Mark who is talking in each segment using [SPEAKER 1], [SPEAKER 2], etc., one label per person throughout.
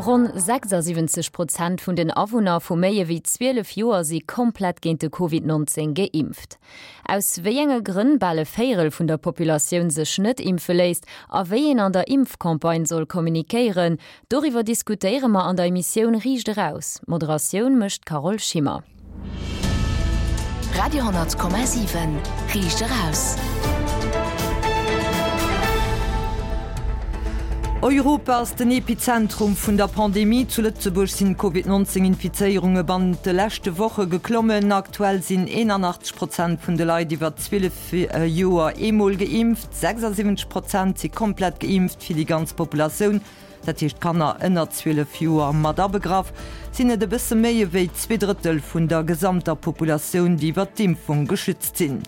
[SPEAKER 1] Ronn 76 Prozent vun den Awunner vu méi ewéi 12 Joer si komplett géint de Covid 19 geimpft. Aus wéi enge Grënn bal e Véierel vun der Populatioun sech net impfe léisst a wéi een an der Impfcampagne soll kommunikéieren, doriwwer diskutéiere mer an der Emissioun Riicht Eraus. D'Moderatioun mécht d'Carole Schimmer.
[SPEAKER 2] Radio 10,7 Riicht eraus.
[SPEAKER 3] Europa ass den Epizentrum vun der Pandemie. Zu Lëtzebuerg sinn d'Covid 19 Infizéierunge bannent de leschte Woche geklommen. Aktuell sinn 81 Prozent vun de Leit iwwer 12 Joer eemol geimpft, 76 Prozent si komplett geimpft. Fir déi ganz Populatioun dat heescht Kanner ënner 12 Joer mat abegraff, sinn et e bësse méi ewéi zweedrëttel vun der gesamter Populatioun, déi iwwer d'Impfung geschützt sinn.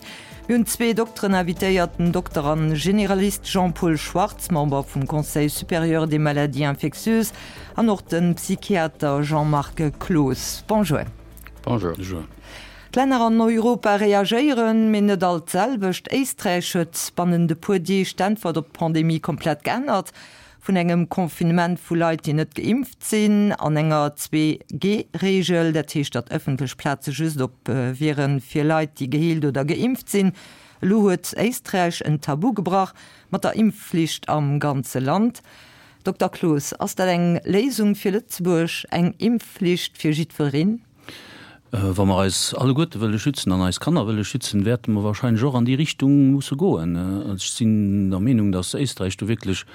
[SPEAKER 3] Mir hunn zwee Dokteren invitéiert, den Dokter a Generalist Jean-Paul Schwartz, Member vum Conseil supérieur des maladies infectieuses, an och de Psychiater Jean-Marc Cloos. Bonjour.
[SPEAKER 4] Bonjour.
[SPEAKER 3] D'Länner an Europa reagéieren, mee net all d'selwecht. Éisträich huet bannent e puer Deeg d'Äntwert op d'Pandemie komplett geännert. Vun engem Confinement vu Leit, déi net geimpft sinn, an enger Zwee-G-Reegel, dat heescht, datt ëffentlech Plaze just op wiere fir Leit, déi geheelt oder geimpft sinn. Elo huet Éisträich en Tabu gebrach mat der Impfflicht am ganze Land. Dokter Cloos, ass dat eng Léisung fir Lëtzebuerg, eng Impfflicht fir jiddwereen?
[SPEAKER 4] Wa mer eis alleguerte wëlle schützen an eis Kanner wëlle schützen, wäerte mer wahrscheinlech och an déi Richtung musse goen. Ech sinn der Meenung, datt Éisträich do wierklech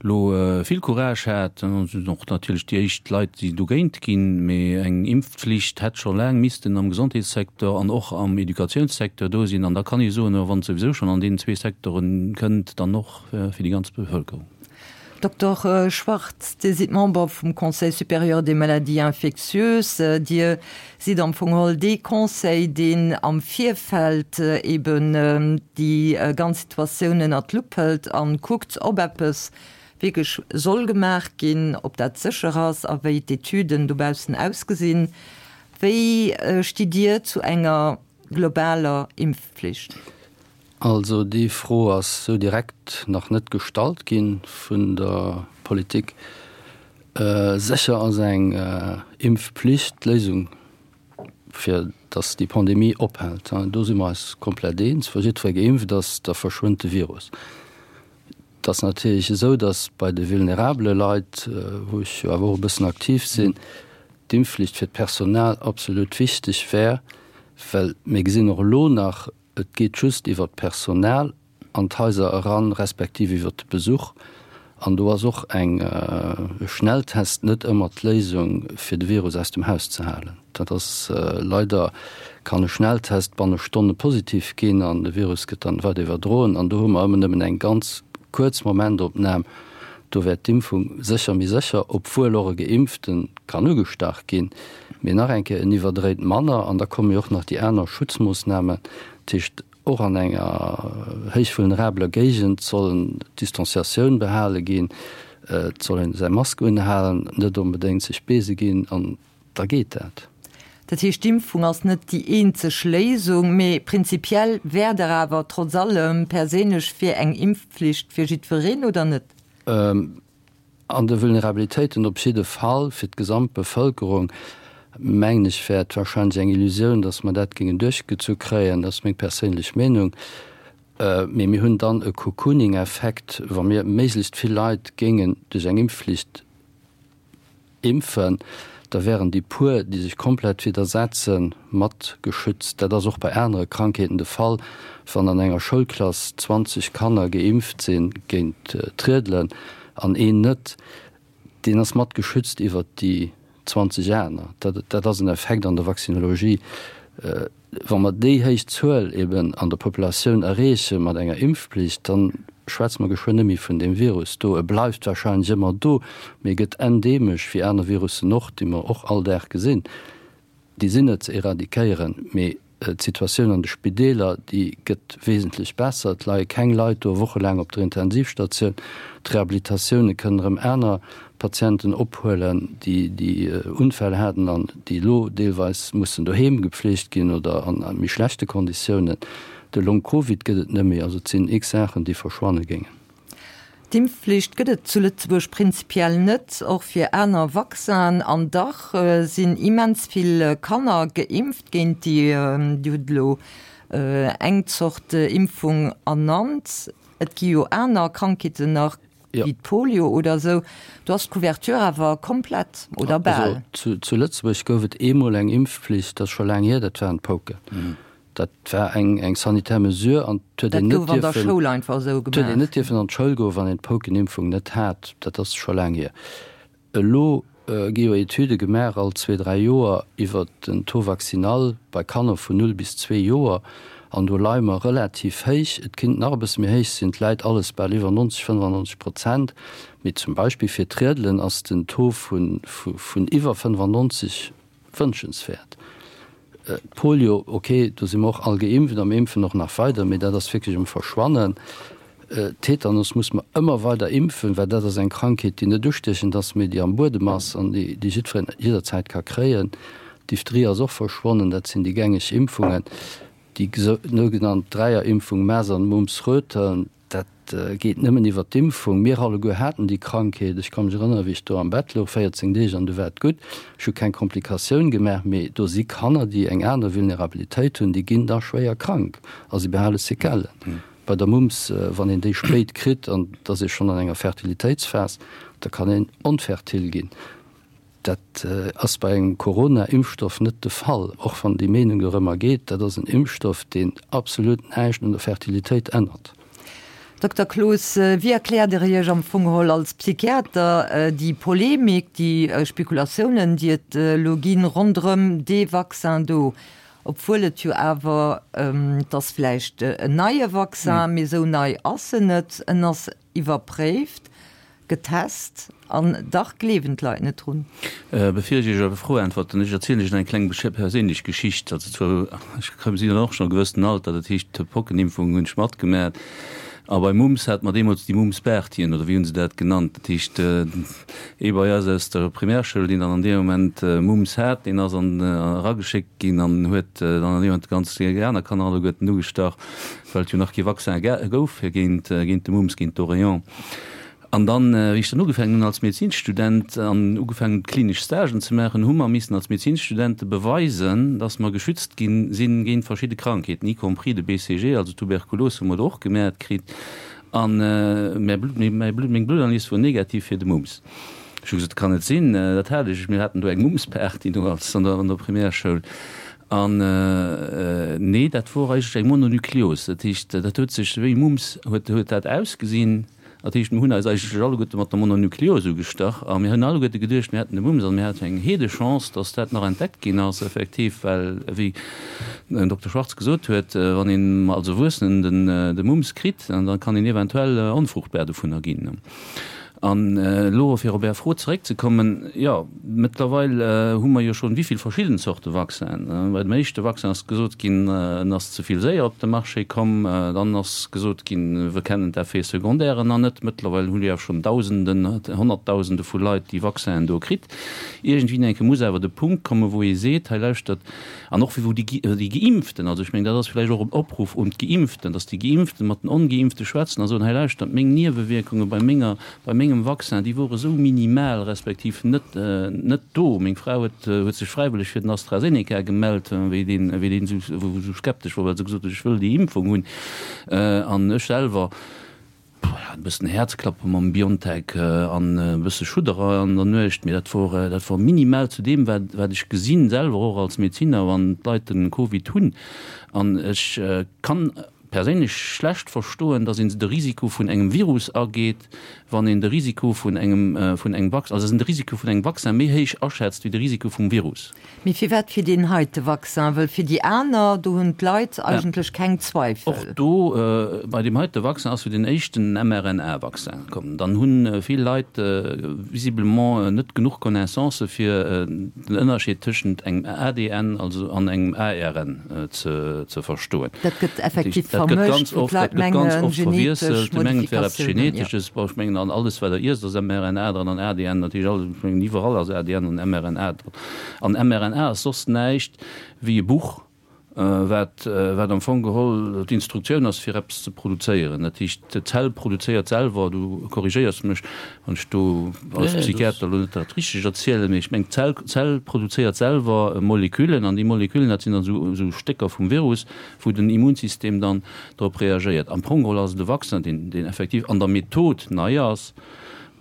[SPEAKER 4] elo vill Courage hat. Et sinn och natierlech déi éischt Leit, déi dogéint ginn. Mee eng Impfflicht hätt scho laang missten am Gesondheetssecteur an och am Educatiounssecteur do sinn. An da kann ee soen, wann et souwisou schonn an deenen zwee Secteure kënnt, dann och fir déi ganz Bevëlkerung.
[SPEAKER 3] Dokter Schwartz, Dir sidd Member vum Conseil supérieur des maladies infectieuses. Dir sidd am Fong geholl dee Conseil, deen am Virfeld eben déi ganz Situatioun ënnert d'Lupp hëlt a kuckt, ob eppes wierklech soll gemaach ginn, ob dat sécher ass a wéi d'Etüden dobaussen ausgesinn. Wéi stitt Dir zu enger globaler Impfpflicht?
[SPEAKER 5] Also déi Fro ass sou direkt nach net gestallt gi vun der Politik. Sécher ass eng Impfpflicht d'Léisung, fir datt déi Pandemie ophält. Do si mer eis komplett eens. Wa jiddweree geimpft ass, da verschwënnt de Virus. Et ass natierlech esou, datt bei de vulnerabele Leit, wou ech jo awer och e bëssen aktiv sinn, d'Impfflicht fir d'Personal absolut wichteg wär, well mir gesinn och elo nach, Et geet just iwwer d'Personal an d'Haiser eran, respektiv iwwer de Besuch. An do ass och eng e Schnelltest net ëmmer d'Léisung, fir de Virus aus dem Haus ze halen. Dat ass leider, kann e Schnelltest banne Stonne positiv ginn an de Virus gëtt dann weider iwwerdroen. An do hu mer ëmmer nëmmen eng ganz kuerz Momentopnam. Do wär d'Impfung sécher méi sécher, obwuel och e Geimpfte kann ugestach ginn. Mee nach eng Kéier, en iwwerdréit manner an da komme jo och nach déi aner Schutzmoossnamen. Dat heescht, och an enger héich vulnerabeler Géigend soll d'Distanciatioun behale ginn, et soll een säi Mask unhalen, net onbedéngt sech beese ginn an da geet dat.
[SPEAKER 3] Dat heescht, d'Impfung ass net déi eenzeg Léisung, mee prinzipiell wäert Der awer trotz allem perséinlech fir eng Impfpflicht fir jiddwereen, oder net?
[SPEAKER 5] An de Vulnerabilitéiten op jidde Fall. Fir d'gesamt Bevëlkerung, mengen ech, wär et wahrscheinlech eng Illusioun, datt mer dat géingen duerchgezu kréien. Dat ass meng perséinlech Meenung. Mee mir hunn dann e Cocooning-Effekt, wa mir méiglechst vill Leit géingen duerch eng Impfflicht impfen, da wären déi puer, déi sech komplett widdersetzen, mat geschützt. Dat ass och bei anere Krankheeten de Fall. Wann an enger Schoulklass 20 Kanner geimpft si géint d'Riedelen an een net, deen ass mat geschützt iwwert déi 20 aner. Dat ass en Effekt an der Vaccinologie. Wa mer déi héich Zuel eben an der Populatioun erreeche mat enger Impfpflicht, da schwätze mer geschwënn net méi vun deem Virus do. E bleift wahrscheinlech ëmmer do, mee e gëtt endeemesch, wéi aner Virussen och, déi mer och all Dag gesinn. Déi sinn net ze eradikéieren, mee d'Situatioun an de Spideeler, déi gëtt wesentlech besser. Et leie keng Leit do wochelaang op der Intensivstatioun. D'Rehabilitatioune kënnen erëm aner Patienten ophuelen, déi déi Unfäll haten an déi elo deelweis mussen doheem gepflegt ginn oder an méi schlechte Konditiounen. De Long-Covid gëtt et net méi. Also et sinn x Saachen, déi verschwanne géingen.
[SPEAKER 3] D'Impfflicht gëtt et zu Lëtzebuerg prinzipiell net, och fir aner Vaccinen. An dach sinn immens vill Kanner geimpft géint déi, Dir hutt elo eng Zort Impfung ernannt, et gi jo aner Krankheeten nach, wéi d'Polio oder esou. Do ass d'Couverture awer komplett oder bal.
[SPEAKER 5] Also zu Lëtzebuerg gouf et eemol eng Impfpflicht, dat ass scho laang hier, dat waren d'Pouken. Dat war eng eng sanitär Mesure an et huet een net dierfen, et huet een net dierfen an d'Schoul goen, wann een d'Poukenimpfung net hat. Dat ass scho laang hier. Elo gi jo Etüde gemaach all zwee, dräi Joer iwwer den Taux vaccinal bei Kanner vun null bis zwee Joer an do leie mer relativ héich. Et kinnt nach e bësse méi héich sinn, et läit alles bal iwwer 90, 95 Prozent. Mee zum Beispill fir d'Riedelen ass den Taux vun iwwer 95 Wënschenswäert. D'Polio, ok, do si mer och all geimpft a mir impfen och nach weider, mee dat ass wierklech um Verschwannen. Tetanus muss mer ëmmer weider impfen, well dat ass eng Krankheet, déi net ustiechend ass, mee déi am Buedem ass an déi jiddwereen jidderzäit ka kréien. Diphtherie ass och verschwonnen, dat sinn déi gängeg Impfungen. Déi sougenannt Dräierimpfung Masern, Mumps, Röteln, Dat geet nëmmen iwwer d'Impfung. Mir alleguer haten déi Krankheet. Ech ka mech erënneren, wéi ech do am Bett louch, 14 Deeg, an du war et gutt. Ech hu keng Komplikatioun gemaach. Mee do si Kanner, déi eng aner Vulnerabilitéit hunn, déi ginn da schwéier krank a si behale Sequellen. Bei der Mumps, wann een déi spéit kritt an et ass ee schonn an enger Fertilitéitsphas, da kann een onfertil ginn. Dat ass bei engem Corona-Impfstoff net de Fall, och wann déi Meenung dorëmmer geet. Dat ass en Impfstoff, deen absolut näischt un der Fertilitéit ännert.
[SPEAKER 3] Dokter Cloos, wéi erkläert Der Iech am Fong geholl als Psychiater déi Polemik, déi Spekulatiounen, déi et elo ginn ronderëm dee Vaccin do, obwuel et jo awer, et ass vläicht en neie Vaccin, mee esou nei ass en net, en ass iwwerpréift, Getest, an dach gleewen d'Leit net drun.
[SPEAKER 4] Bevir ech Iech op Är Fro äntwerten, ech erzielen Iech nach eng kleng perséinlech Geschicht. Also zwar, ech sinn dann och schonn e gewëssenen Alter, dat heescht d'Pockenimpfung hunn ech matgemaat. A bei Mumps hate mer deemools déi Mumps-Bärtchen, oder wéi hu se dat genannt? Dat heescht, ee bei eis aus der Primärschoul, deen dann an deem Moment Mumps hat, deen ass an erageschéckt ginn an huet dann an deem Moment déi ganz déi aner Kanner alleguerten ugestach, well et jo nach kee Vaccin gouf fir géint géint de Mumps, géint d'Oreillon. An dann, wéi ech dann ugefaangen hunn als Medezinsstudent an ugefaangen hunn klinesch Stagen ze maachen, hu mer missen als Medezinsstudente beweisen, dass mer geschützt gi sinn géint verschidde Krankheeten, y compris de BCG, also Tuberkulos hu mer do och gemäert kritt. An mäi Blut, mäi Blut, meng Blutanalyse wor negativ fir de Mumps. Ech hu gesot, dat kann net sinn, dat hat ech, mir haten do eng Mumpsparty do als an der, an der Primärschoul. An nee, dat wor eigentlech eng Mononukleos, dat heescht, dat huet sech wéi Mumps huet, huet dat ausgesinn. Dat heescht, mir hunn eis eigentlech alleguerte mat der Mononukleos ugestach a mir hunn alleguerte geduecht, mir hätten de Mumps an mir haten eng Heedechance, dass dat nach entdeckt ginn ass effektiv, well, wéi den Dokter Schwarz gesot huet, wann een als Erwuessenen de Mumps kritt, da kann een eventuell onfruchtbar dovunner ginn. An elo, fir op Är Fro zeréckzekommen, jo, mëttlerweil hu mer jo schonn wéi vill verschidden Zorte Vaccinen. Bei dem éischte Vaccin ass gesot ginn, en ass ze vill séier op de Marché komm. Dann ass gesot ginn, wir kennen d'Effets secondaires nach net. Mëttlerweil hu jo schonn Dausenden, Honnertdausende vu Leit déi Vaccinen do kritt. Iergendwéi enke muss awer de Punkt kommen, wou ee seet, hei lauschtert, an och wou déi Geimpften, also ech mengen, dat ass vläicht och en Opruff un d'Geimpften, dass déi Geimpften mat den Ongeimpfte schwätzen a soen, hei lauschtert, meng Niewewierkunge bei menger, bei mengem Vaccin, déi wore sou minimal respektiv net, net do. Meng Fra huet, huet sech fräiwëlleg fir den AstraZeneca gemellt, wéi deen, wéi deen esou, esou skeptesch wor, well se gesot huet, ech wëll déi Impfung hunn. An ech selwer, e bëssen Häerzklappe mam Biontech an e bësse Schudderer an der Nuecht, mee dat wor, dat wor minimal zu deem, wat, wat ech gesinn, selwer och als Medeziner, wann d'Leit den Covid hunn. An ech kann perséinlech schlecht verstoen, dass een de Risiko vun engem Virus ageet, wann een de Risiko vun engem, vun engem Vaccin, also dass een de Risiko vun engem Vaccin méi héich aschätzt wéi de Risiko vum Virus.
[SPEAKER 3] Mee firwat fir deen heite Vaccin? Wëll fir déi aner, do hunn d'Leit eigentlech keng Zweifel.
[SPEAKER 4] Och do, bei deem heite Vaccin ass jo den éischten mRNA-Vaccin komm. Dann hu vill Leit visiblement net genuch Connaissancë fir den Ënnerscheed tëschent engem ADN also an engem ARN ze verstoen.
[SPEAKER 3] Dat gëtt effektiv vermëscht, wou d'Leit mengen, genetesch Modifikatiounen.
[SPEAKER 4] Ech mengen, an alles wat Der iesst ass mRNA dran an ADN natierlech alles. Ech mengen, iwwerall ass ADN an mRNA dran. An mRNA ass soss näischt wéi e Buch. Wat, wat am Fong geholl d'Instruktioun ass, fir eppes ze produzéieren. Dat heescht, d'Zell produzéiert selwer, du korrigéiers mech, wann ech do als Psychiater elo net dat Richtegt erzielen, mee ech mengen, d'Zell, d'Zell produzéiert selwer Moleküllen an déi Moleküllen, dat sinn dann esou, esou Stécker vum Virus, wou den Immunsystem dann drop reagéiert. Am Fong geholl ass et e Vaccin, deen, deen effektiv an der Method nei ass,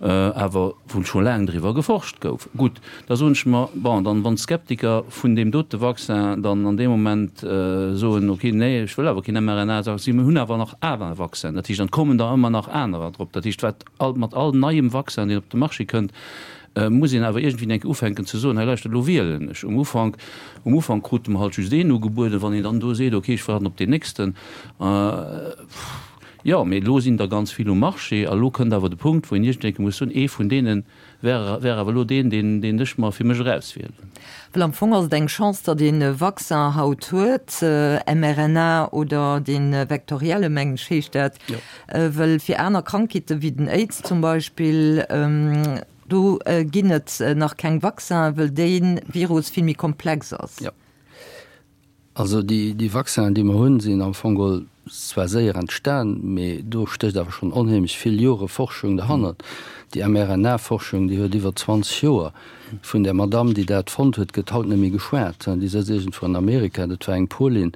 [SPEAKER 4] awer wou scho laang driwwer geforscht gouf. Gutt, da soen ech mer, bon, dann, wann d'Skeptiker vun deem dote Vaccin dann an deem Moment soen, okay, nee, ech wëll awer keen mRNA-Vaccin, mir hunn awer nach aner Vaccinen, dat heescht, dann kommen der ëmmer nach anerer drop. Dat heescht, wat all, mat all neiem Vaccin, deen op de Marché kënnt, muss een awer iergendwéi eng Kéier ufänken ze soen, hei lauschtert, elo wielen ech. Um Ufank, um Ufank krute mer halt just een ugebueden, wann een dann do seet, okay, ech waarden op deen nächsten, Jo, mee elo sinn der ganz vill um Marché a elo kënnt awer de Punkt, wou een iergendwéi muss soen, ee vun deene wär, wär awer elo deen, deen, deen ech mer fir mech erauswielen.
[SPEAKER 3] Well am Fong ass et eng Chance, datt een e Vaccin haut huet, mRNA oder dee vektorielle, mengen ech heescht dat, well fir aner Krankheete wéi den Aids zum Beispill, do ginn et nach keng Vaccinen, well dee Virus vill méi komplex ass.
[SPEAKER 5] Also déi Vaccinen, déi mer hunn, sinn am Fong geholl zwar séier entstan, mee do stécht awer schonn onheemlech vill Jore Forschung derhannert. Déi mRNA-Forschung, déi huet iwwer 20 Joer. Vun där Madamm, déi dat fonnt huet, gëtt haut net méi geschwat. Déi sëtzt iergendwou an Amerika, dat war eng Polin,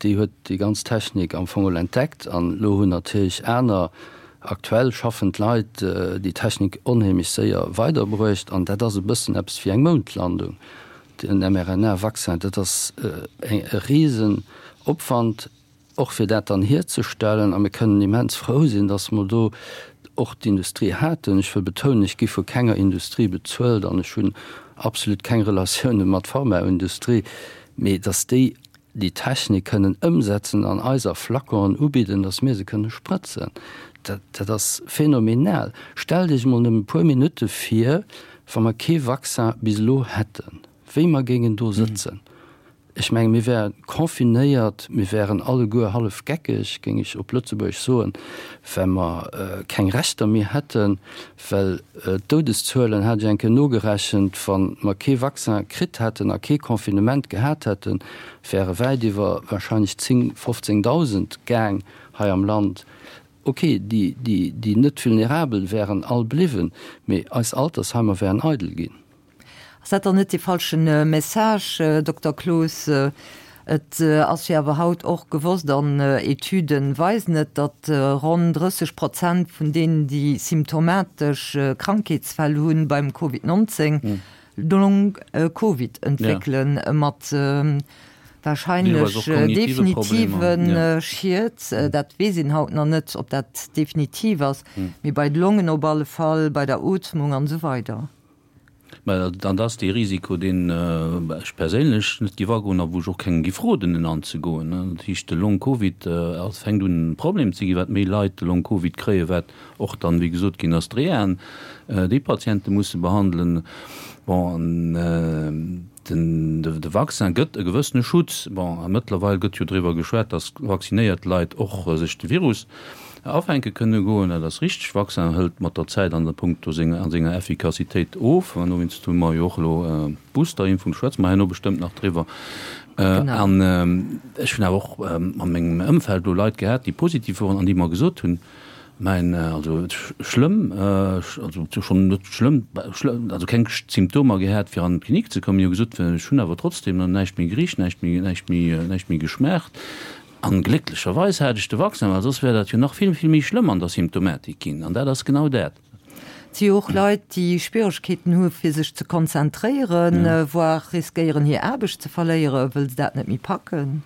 [SPEAKER 5] déi huet déi ganz Technik am Fong geholl entdeckt. An elo hunn natierlech aner aktuell schaffend Leit déi Technik onheemlech séier weiderbruecht. An dat ass e bëssen eppes wéi eng Moundlandung. Den mRNA-Vaccin, dat ass e Risenopwand, och fir dat dann hierzestellen. A mir kënnen immens frou sinn, datt mer do och d'Industrie haten. Ech wëll betounen, ech gi vu kenger Industrie bezuelt an ech hunn absolut keng Relatioune mat Pharmaindustrie, mee datt déi déi Technik kënnen ëmsetzen an eis a Flaconen ubidden, datt mir se kënne sprëtzen, dat, dat ass phänomenal. Stellt Iech emol nëmmen e puer Minutte vir, wa mer kee Vaccin bis elo hätten, wéi mer géingen do sëtzen. Ech menge mir wäre confinéiert, mir wären alleguer hallef geckeg, géing ech op Lëtzebuergesch soen, well mer keng Rechter méi hätten, Well d'Doudeszuelen, hat ech eng Kéier nogerechent, wa mer kee Vaccin kritt hätten a kee Confinement gehat hätten, wäre wäit iwwer wahrscheinlech 10, 15.000 gaang hei am Land. Ok, déi, déi net vulnerabel wären all bliwwen, mee eis Altersheimer wären eidel ginn.
[SPEAKER 3] Ass dat dann net dee falschen Message, Dokter Cloos? Et ass jo awer haut och gewosst, an Etüden weisen et, datt ronn 30 Prozent vun deenen, déi symptomatesch Krankheetsfäll hunn beim Covid 19, Long Covid entwéckelen, mat Wahrscheinlech definitive Schied, dat weess een haut nach net, ob dat definitiv ass, mee bei de Longen op alle Fall, bei der Ootmung an esou weider.
[SPEAKER 4] Mä dann ass dee Risiko, deen ech perséinlech net géif agoen a wou ech och kengem géif roden, en anzegoen. Dat heescht, de Long-Covid ass, fänkt un e Problem ze ginn, wat méi Leit de Long-Covid kréien, wat och dann, wéi gesot ginn ass, d'Rehaen déi Patiente musse behandelen. Bon, an den, de Vaccin gëtt e gewëssene Schutz. Bon, a mëttlerweil gëtt jo driwwer geschwat, datt vaccinéiert Leit och sech de Virus Afänke kënne goen, dat ass richteg. Vaccin hëlt mat der Zäit an der Punkto senger, an senger Effikassitéit of. An dowéinst hu mer jo och elo d'Boosterimpfung, do schwätze mer herno bestëmmt nach driwwer. An ech hunn awer och a mengem Ëmfeld elo Leit gehat, déi positiv woren an déi mer gesot hunn, Mäin, also schlëmm, also schonn net schlëmm, also keng Symptomer gehat, fir an d'Klinik ze kommen. Déi hu gesot, ech hunn awer trotzdem näischt méi gericht, näischt méi, näischt méi, näischt méi geschmaacht. An glécklecherweis hat ech de Vaccin, well soss wär dat jo nach vill, vill méi schlëmm an der Symptomatik ginn. An dat ass genau dat.
[SPEAKER 3] Et si jo och Leit, déi Schwieregkeeten hu fir sech ze konzentréieren, voire riskéieren hir Aarbecht ze verléieren, wëll se dat net méi packen.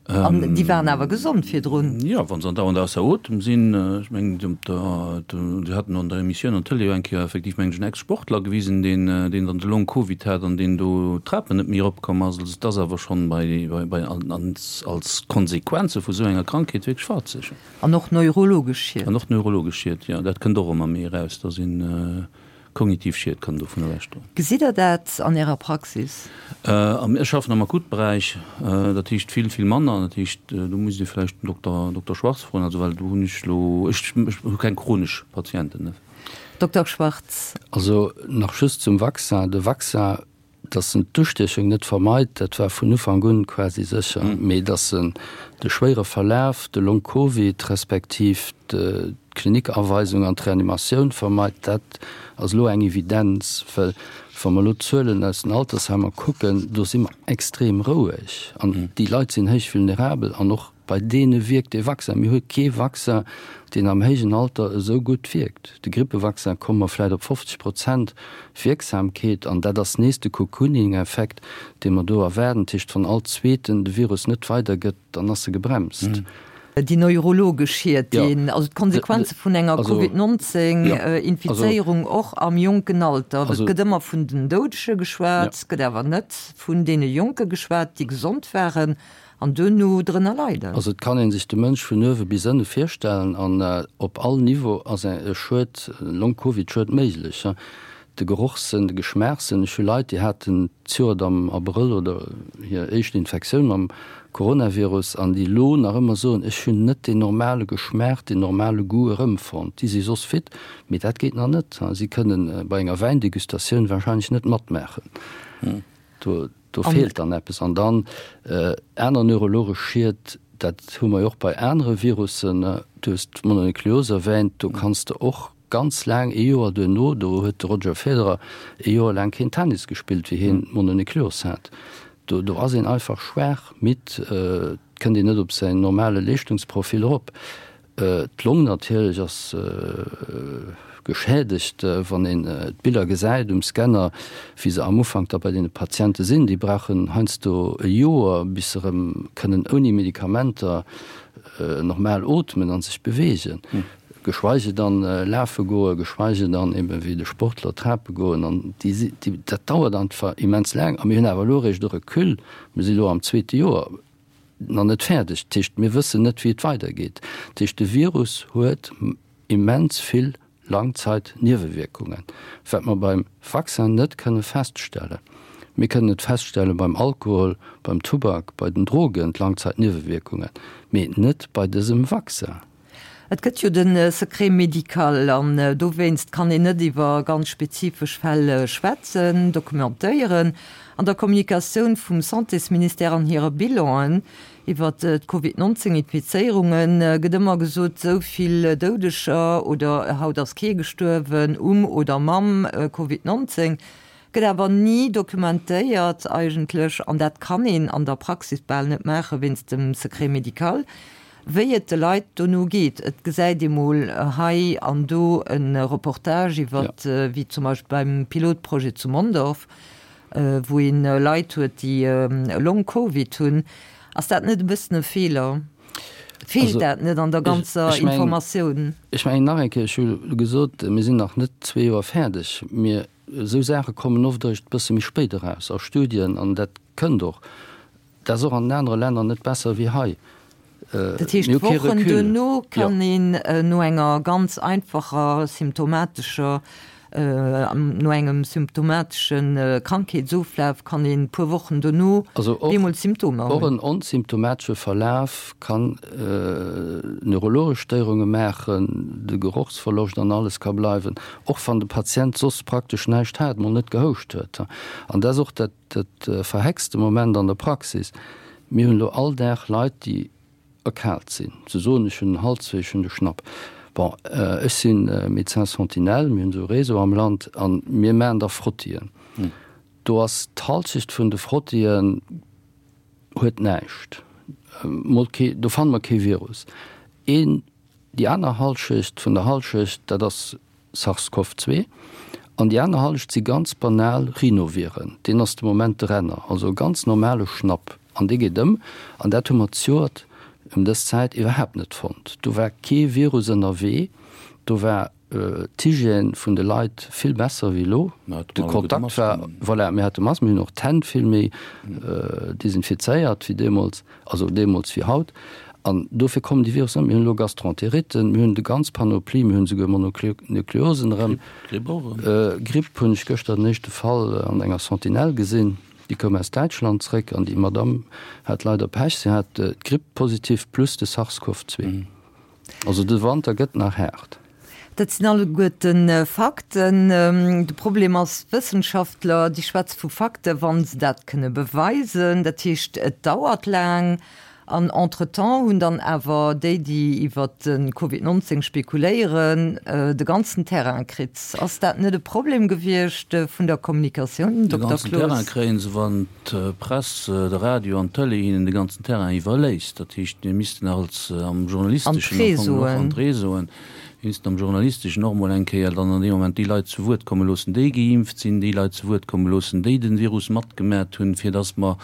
[SPEAKER 3] An déi waren awer gesond virdrun.
[SPEAKER 4] Jo, wa se andauernd ausser Otem sinn. Ech mengen, Dir hat an der Emissioun an der Tëlee jo eng Kéier effektiv, mengen ech, en Ex-Sportler gewisen, deen dann de Long-Covid hat an deen do d'Trapen net méi eropkomm ass. Also et ass awer schonn bei, bei, als Konsequenze vu sou enger Krankheet wierklech fatzeg.
[SPEAKER 3] An och neurologesch Schied.
[SPEAKER 4] An och neurologesch Schied, jo. Dat kënnt och ëmmer méi eraus, dass een kognitiv Schied kann dovun ewechdroen.
[SPEAKER 3] Gesitt Der dat an Ärer Praxis?
[SPEAKER 4] Ech schaffen am Akutberäich, dat heescht vill, vill manner. Dat heescht, do musst Dir vläicht den Dokter, Dokter Schwarz froen, also well do hunn ech elo, ech hu keng chronesch Patienten.
[SPEAKER 3] Dokter Schwarz.
[SPEAKER 5] Also nach just zum Vaccin. De Vaccin. Dass en d'Ustiechung net vermeit, dat war vun Ufank un quasi sécher. Mee dass en de schwéiere Verlaf, de Long Covid respektiv d'Klinikaweisung an d'Reanimatioun vermeit, dat ass elo eng Evidenz. Well wa mer elo d'Zuelen aus den Altersheimer kucken, do si mer extrem roueg an déi Leit sinn héich vulnerabel an och Bei deene wierkt dee Vaccin. Mir hu kee Vaccin, deen am héijen Alter esou gutt wierkt. De Grippevaccin komme mer vläicht op 50 Prozent Wierksamkeet an dat ass nees de Cocooning-Effekt, dee mer do erwaarden. Dat heescht, wann all Zweeten de Virus net weidergëtt, dann ass e gebremst.
[SPEAKER 3] Déi neurologesch Schied, déi, also d'Konsequenze vun enger Covid 19 Infizéierung och am jonken Alter. Et gëtt ëmmer vun den Doudege geschwat, et gëtt awer net vun deene Jonke geschwat, déi gesond waren. An duerno drënner leiden.
[SPEAKER 5] Also et kann ee sech de Mënsch vun uewe bis ënne virstellen an op all Niveau ass e Schued, Long-Covid-Schued méiglech. De Gerochssënn, de Geschmaachssënn, ech hu Leit, déi haten d'Joert am Abrëll oder hir éischt Infektioun mam Coronavirus an déi elo nach ëmmer soen, ech hunn net deen normale Geschmaach, deen normale Goût erëmfonnt. Déi si soss fit, mee dat geet nach net. Si kënnen bei enger Wäindegustatioun warscheinlech net matmaachen. Do, do feelt dann eppes. An dann aner neurologesch Schied, dat hu mer jo och bei anere Virussen, du hues d'Mononukleos erwähnt, do kanns de och ganz laang, ee Joer duerno, do huet de Roger Federer ee Joer laang keen Tennis gespillt, wéi hien d'Mononukleos hat. Do, do ass een einfach schwaach, midd, et kënnt een net op säin normale Leeschtungsprofil erop. D'Long natierlech ass geschädegt, wann een d'Biller gesäit um Scanner, wéi se am Ufank da bei deene Patiente sinn. Déi brauchen heiansdo e Joer, bis se erëm kënnen ouni Medikamenter normal ootmen a sech beweegen, geschweige dann lafe goen, geschweige dann ebe wéi de Sportler trape goen. An déi, dat dauert einfach immens laang. A mir hunn awer elo eréischt e Recul, mir si elo am zweete Joer, nach net fäerdeg. Dat heescht, mir wëssen net, wéi et weidergeet. Dat heescht, de Virus huet immens vill Langzeitniewewierkungen, wat mer beim Vaccin net kënne feststellen. Mir kënnen et feststelle beim Alkohol, beim Tubak, bei den Drogen, d'Langzeitniewewierkungen, mee net bei dësem Vaccin.
[SPEAKER 3] Et gëtt jo de Secret médical an dowéinst kann een net iwwer ganz spezifesch Fäll schwätzen, dokumentéieren. An der Kommunikatioun vum Santésministère an hire Bilanen iwwer d'Covid 19 Infizéierunge gëtt ëmmer gesot, esou vill Doudeger oder haut ass kee gestuerwen um oder mam Covid 19. Gëtt awer ni dokumentéiert eigentlech, an dat kann een an der Praxis bal net maache wéinst dem Secret médical, wéi et de Leit dono geet. Et gesäit ee mol hei an do e Reportage iwwer, wéi zum Beispill beim Pilotprojet zu Mondorf, wou ee Leit huet, déi Long-Covid hunn. Ass dat net e bëssen e Feeler? Feelt dat net an der ganzer Informatioun?
[SPEAKER 5] Ech mengen nach eng Kéier, ech hu gesot, mir sinn nach net zwee Joer fäerdeg. Mir, esou Saache kommen oft eréischt e bësse méi spéit eraus a Studien an dat kënnt och. Dat ass och an den anere Länner net besser wéi hei.
[SPEAKER 3] Dat heescht, Wochen duerno kann een no enger ganz einfacher symptomatescher, no engem symptomatesche Krankheetsoflaf kann een e puer Wochen duerno bemol Symptomer
[SPEAKER 5] hunn. Och en onsymptomatesche Verlaf kann neurologesch Stéierunge maachen, de Gerochsverloscht an alles ka bleiwen, och wann de Patient soss praktesch näischt hat, mol net gehouscht huet. An dat ass och dat, Dat verhexte Moment an der Praxis, Mir hunn elo all Dag Leit, déi erkaalt sinn. Se soen, ech hunn den Halswéi, ech hunn de Schnapp. Bon, ech si Médecin sentinelle, mir hunn esou e Réseau am Land a mir maachen da Frottien. Do ass d'Halschecht vun de Frottien huet näischt, mol kee, do fanne mer kee Virus. Een, déi aner Halschecht vun der Halschecht, dat ass SARS-CoV 2, an déi aner Hallescht si ganz banal Rhinoviren, deen ass de Moment de Renner, also e ganz normale Schnapp, an dee geet ëm, an dat hu mer zejoert ëm dës Zäit iwwerhaapt net fonnt. Do war kee Virus ënnerwee, do war d'Hygiène vun de Leit vill besser wéi elo, de Kontakt war, voilà, mir hate Masken, mir hunn och d'Hänn vill méi desinfizéiert wéi deemools. Also deemools wéi haut. An dofir kommen déi Virussen net. Mir hunn elo Gastroenteritten, mir hunn de ganz Panoplie, mir hunn esouguer Mononukleosen erëm.
[SPEAKER 4] Gripp och erëm.
[SPEAKER 5] Gripp hunn ech gëschter den éischte Fall an enger Sentinelle gesinn. Déi koum aus Däitschland zréck an déi Madamm hat leider Pech, si hat d'Gripp positiv plus de SARS-CoV-2. Also de Wanter gëtt nach haart.
[SPEAKER 3] Dat sinn alleguerten Fakten. De Problem ass, d'Wëssenschaftler, déi schwätze vu Fakten, wa se dat kënne beweisen. Dat heescht, et dauert laang. An entretemps hunn dann awer déi, déi iwwert de Covid 19 spekuléieren, de ganzen Terrain kritt. Ass dat net e Problem gewiescht vun der Kommunikatioun,
[SPEAKER 4] Dokter Cloos? De ganzen Terrain kréie se, wann d'Press, de Radio an d'Tëlee hinnen de ganzen Terrain iwwerléisst. Dat heescht, mir missten als am journalisteschen am Fong och an d'Réseauen, mir missten am journalisteschen och emol eng Kéier dann an deem Moment déi Leit zu Wuert komme loossen, déi geimpft sinn, déi Leit zu Wuert komme loossen, déi de Virus matgemat hunn, fir dass mer,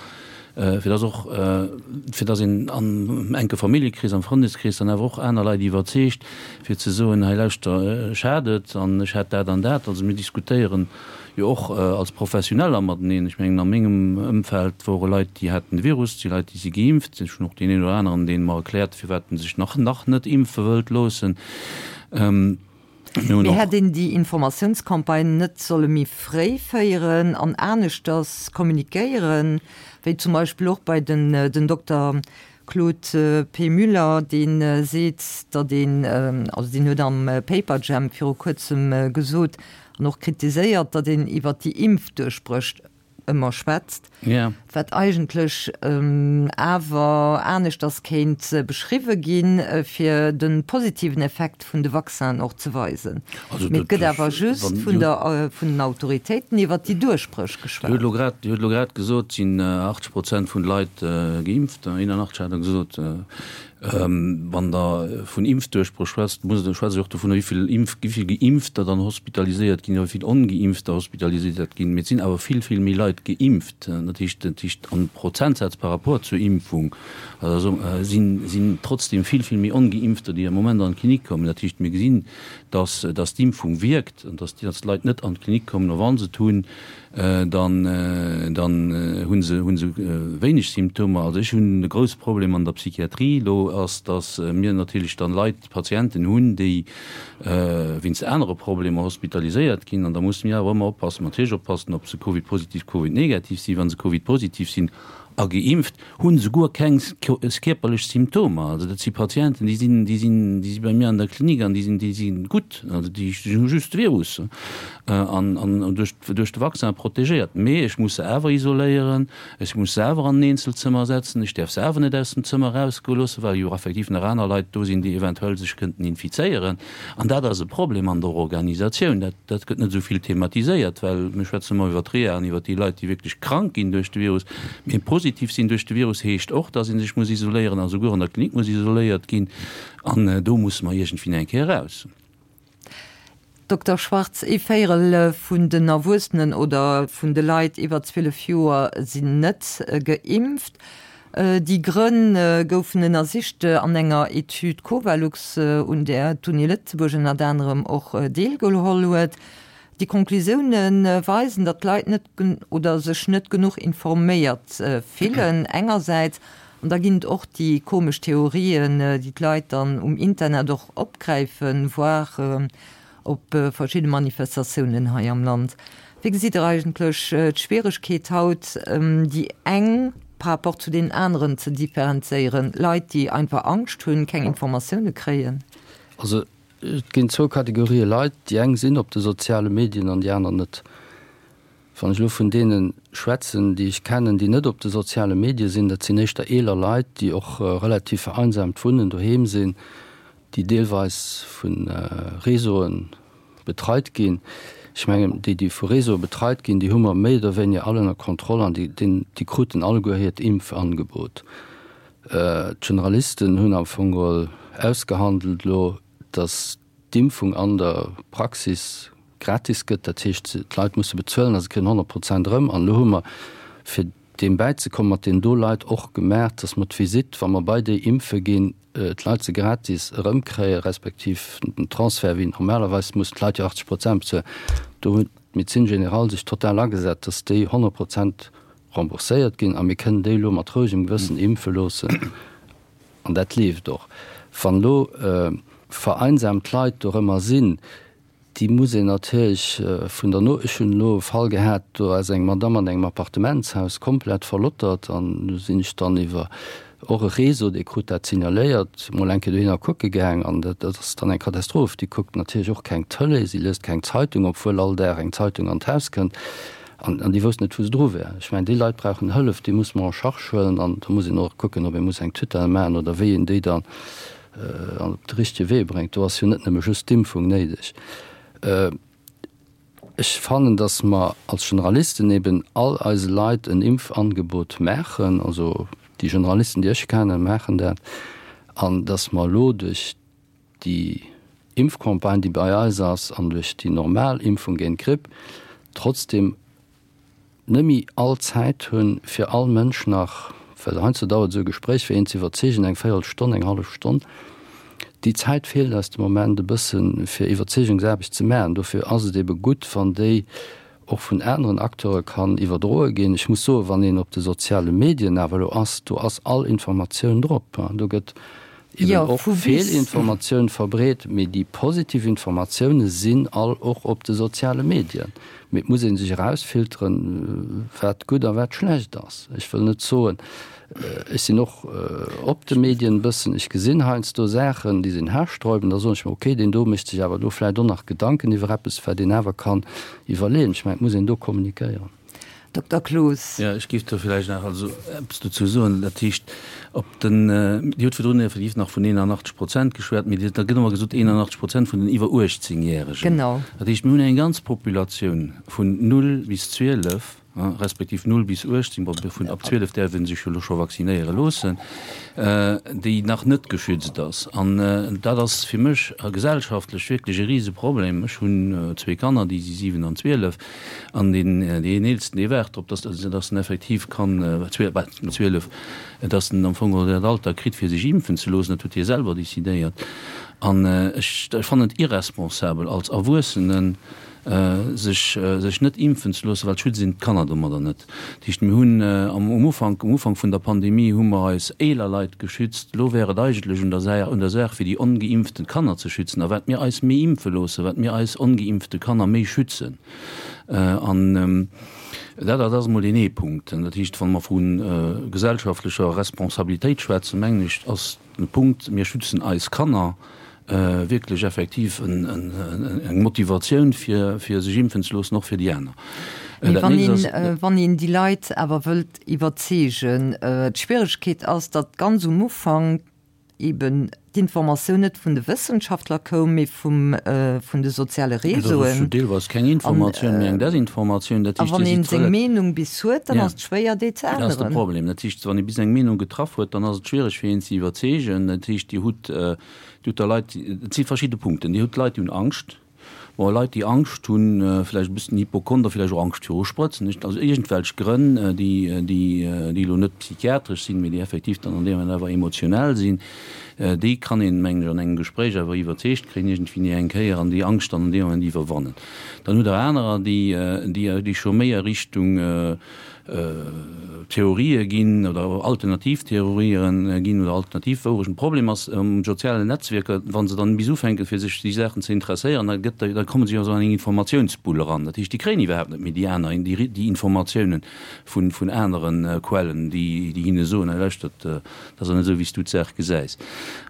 [SPEAKER 4] fir dass och, fir dass een am enke Familljekrees, am Frëndeskrees dann awer och aner Leit iwwerzeegt, fir ze soen, hei lauschter, ech hat et an ech hat dat an dat. Also mir diskutéieren jo och als Professioneller mateneen. Ech mengen, a mengem Ëmfeld wore Leit, déi haten de Virus, et si Leit, déi si geimpft. Ech hunn och deen een oder aneren, dee mer erkläert, firwat en sech nach nach net impfe wëllt loossen.
[SPEAKER 3] Mee hätt een déi Informatiounscampagne net solle méi fréi féieren an aneschters kommunikéieren, wéi zum Beispill och bei den den Dokter Claude P. Müller, dee seet, datt een, also deen huet am Paperjam viru kuerzem gesot an och kritiséiert, datt een iwwer déi Impfduerchbréch ëmmer schwätzt, wat eigentlech awer aneschters kéint beschriwwe ginn, fir de positiven Effekt vun de Vaccinen och ze weisen. Mee et gëtt awer just vun der, vun den Autoritéiten iwwert déi Duerchbréch geschwat.
[SPEAKER 4] Dir hutt elo grad, Dir hutt elo grad gesot, et sinn 80 Prozent vun de Leit geimpft, 81 hat Der gesot. Wann Der vun Impfduerchbréch schwätzt, musst Der, schwätzt Der och dovunner, wéi vill Impf, wéi vill Geimpfter dann hospitaliséiert ginn oder wéi vill Ongeimpfter hospitaliséiert ginn. Mee et sinn awer vill, vill méi Leit geimpft. Dat heescht, dat heescht am Prozentsaz par rapport zur Impfung, also sinn, sinn trotzdem vill, vill méi Ongeimpfter, déi am Moment an d'Klinik kommen. Dat heescht, mir gesinn, dass, dass d'Impfung wierkt an dass, dass d'Leit net an d'Klinik kommen a wa se et hunn, dann, dann hu se, hu se wéineg Symptomer. Also ech hunn e grousse Problem an der Psychiatrie elo ass, dass mir natierlech dann Leit, Patienten hunn, déi wéinst anere Problemer hospitaliséiert ginn. An da musse mir awer ëmmer oppassen, natierlech oppassen, ob se Covid-positiv, Covid-negativ sinn. Wa se Covid-positiv sinn a geimpft, hunn souguer keng kierperlech Symptomer. Also dat si Patienten, déi sinn, déi sinn, déi si bei mir an der Klinik an déi sinn, déi si gutt. Also déi hu just de Virus an, an duerch, duerch de Vaccin protegéiert. Mee ech muss se awer isoléieren, ech muss se awer an en Eenzelzëmmer setzen, ech däerf se awer net aus dem Zëmmer erausgoe loossen, well jo effektiv nach aner Leit do sinn, déi eventuell sech kënnten infizéieren. An dat ass e Problem an der Organisatioun. Dat, dat gëtt net esou vill thematiséiert, well mir schwätzen ëmmer iwwer d'Reha an iwwer déi Leit, déi wierklech krank ginn duerch de Virus. Mee positiv sinn duerch de Virus heescht och, dass ee sech muss isoléieren a souguer an der Klinik muss isoléiert ginn. An do musse mer iergendwéi eng Kéier eraus.
[SPEAKER 3] Dokter Schwarz, ee Véierel vun den Erwuessenen oder vun de Leit iwwer 12 Joer sinn net geimpft. Déi Grënn goufen ënnersicht an enger Etüd Covalux, un där d'Uni Lëtzebuerg ënnert anerem och deelgeholl huet. Déi Conclusioune weisen, datt d'Leit net oder sech net genuch informéiert fillen engersäits, an da ginn et och déi komesch Theorien, déi d'Leit dann um Internet och opgräifen, voire op verschidde Manifestatiounen hei am Land. Wéi gesitt Der eigentlech d'Schwieregkeet haut, déi eng par rapport zu deenen aneren ze differenzéieren, Leit, déi einfach Angscht hunn, keng Informatioune kréien?
[SPEAKER 5] Also et ginn zwou Kategorië Leit, déi eng sinn op de soziale Medien an déi aner net. Wann ech elo vun deene schwätzen, déi ech kennen, déi net op de soziale Medie sinn, dat sinn éischter eeler Leit, déi och relativ vereinsamt wunnen, doheem sinn, déi deelweis vu Réseaue betreit ginn. Ech mengen, déi, déi vu Réseaue betreit ginn, déi hu mer méi oder wéiniger all ënner Kontroll an déi, déi kruten alleguer hiert Impfangebot. D'Generalisten hunn am Fong geholl ausgehandelt elo, datt d'Impfung an der Praxis gratis gëtt, dat heescht d'Leit musse bezuelen a se kréien 100 Prozent erëm. An elo hu mer, fir deem bäizekommen, mat deenen do Leit och gemaach, datt mer d'Visitt, wa mer bei déi impfe ginn, d'Leit se gratis erëmkréien, respektiv den Transfert, wéi normalerweis mussen d'Leit jo 80 Prozent bezuelen. Do huet d'Médecine générale sech total agesat, datt déi 100 Prozent rembourséiert ginn a mir kënnen déi elo mat rouegem Gewëssen impfe loossen. An dat leeft och. Wann elo vereinsamt Leit dorëmmer sinn, déi muss een natierlech vun der No. Ech hunn elo e Fall gehat, do ass eng Madamm an engem Appartementshaus komplett verlottert an do sinn ech dann iwwer. Och e Réseau, dee krut dat signaléiert, mol eng Kéier dohinner kucke gaang an dat ass dann eng Katastroph. Déi kuckt natierlech och keng Tëlee, si liest keng Zeitung, obwuel all Dag eng Zeitung an d'Haus kënnt an an déi wousst net, wou se dru wär. Ech mengen, déi Leit brauchen Hëllef, déi muss mer en charge huelen an da muss een och kucken, ob ee muss eng Tutelle maachen oder wéi een déi dann op de richtege Wee bréngt. Do ass jo net nëmme just d'Impfung néideg. Ech fannen, dass mer als Generalisten eben all eise Leit en Impfangebot maachen, also déi Generalisten, déi ech kennen, maachen dat, an dass mer elo duerch déi Impfcampagne, déi bei eis ass, an duerch déi normal Impfung géint d'Gripp trotzdem net méi all Zäit hunn, fir all Mënsch nach, well heiansdo dauert esou e Gespréich, fir een ze iwwerzeegen, eng Véierelstonn, eng hallef Stonn. Déi Zäit feelt eis de Moment e bëssen, fir Iwwerzeegungsaarbecht ze maachen. Dofir ass et ebe gutt, wann déi och vun aneren Acteure kann iwwerdroe ginn. Ech muss soen, wann een op de soziale Medien awer elo ass, do ass all Informatioun drop. Do gëtt eben och Feelinformatioun verbreet, mee déi positiv Informatioune sinn all och op de soziale Medien. Mee et muss ee sech erausfilteren, wat gutt a wat schlecht ass. Ech wëll net soen, ech sinn och op de Medien e bëssen, ech gesinn heiansdo Saachen, déi sinn haarsträubend, da soen ech mer, okay, deen do mécht sech awer do vläicht och nach Gedanken iwwer eppes, wat een awer kann iwwerleeën. Ech mengen, et muss een do kommunikéieren.
[SPEAKER 3] Dokter Cloos.
[SPEAKER 4] Jo, ech géif do vläicht nach also eppes dozou soen. Dat heescht, op den, Dir hutt virdrun effektiv nach vun 81 Prozent geschwat, mee da gëtt ëmmer gesot 81 Prozent vun den iwwer 18 Järegen.
[SPEAKER 3] Genau.
[SPEAKER 4] Dat heescht, mir hunn eng ganz Populatioun vun 0 bis 12, respektiv 0 bis 18, bon, vun ab 12 däerf ee sech jo elo scho vaccinéiere loossen, déi nach net geschützt ass. An dat ass fir mech gesellschaftlech wierklech e Riseproblem. Ech hunn zwee Kanner, déi si 7 an 12. An deen, deen Eelsten, dee waart drop, dass, dass en effektiv kann, 12, dass en am Fong geholl dat Alter kritt, fir sech impfen ze loossen. Dat huet hie selwer decidéiert. An ech, ech fannen et irresponsabel, als Erwuessenen sech, sech net impfen ze loossen, well et schützt een d'Kanner domadder net. Dat heescht, mir hunn am, um Ufank, um Ufank vun der Pandemie hu mer eis eeler Leit geschützt. Elo wär et eigentlech un der Saach, un der Saach, fir déi ongeimpften Kanner ze schützen. A wat mir eis méi impfe loossen, wat mir eis ongeimpfte Kanner méi schützen. An dat, dat ass emol deen ee Punkt. Dat heescht, wa mer vu gesellschaftlecher Responsabilitéit schwätzen, mengen ech, ass den Punkt, mir schützen eis Kanner, wierklech effektiv eng Motivatioun, fir sech impfen ze loossen, och fir déi aner.
[SPEAKER 3] Mee wann een, wann een déi Leit awer wëllt iwwerzeegen, d'Schwieregkeet ass, datt ganz um Ufank eben d'Informatioun net vun de Wëssenschaftler koum, mee vum, vun de soziale Réseauen.
[SPEAKER 4] Dat ass jo deelweis keng Informatioun, mee eng Desinformatioun.
[SPEAKER 3] Dat heescht, a wann een seng Meenung bis huet, dann ass et schwéier, déi ze änneren.
[SPEAKER 4] Dat ass de Problem. Dat heescht, wann ee bis eng Meenung getraff huet, dann ass et schwiereg, fir een ze iwwerzeegen. Dat heescht, Dir hutt, Dir hutt da Leit, et si verschidde Punkten. Dir hutt Leit, déi hunn Angscht. Bon, Leit, déi Angscht hunn, vläicht e bëssen Hypochonder, vläicht och Angscht viru Sprëtzen, nicht? Also iergendwelch Grënn, déi, déi, déi elo net psychiatresch sinn, mee déi effektiv dann an deem Moment awer emotionell sinn, déi kann een, mengen ech, an engem Gespréich awer iwwerzeegt kréien iergendwéi eng Kéier an déi Angscht dann an deem Moment iwwerwannen. Dann hutt Der anerer, déi, déi, déi scho méi a Richtung, Theorië ginn oder alternativ Theorië ginn oder alternativ Wourechten. Problem ass um sozialen Netzwierker, wa se dann bis ufänken, fir sech déi Saachen ze interesséieren, da gëtt, da komme se jo esou an eng Informatiounsbull eran. Dat heescht, déi kréien iwwerhaapt net méi déi aner, déi, déi Informatiounen vun, vun anere Quellen, déi, déi hinne soen, hei lauschtert, dat ass net esou, wéi s du d'Saach gesäis.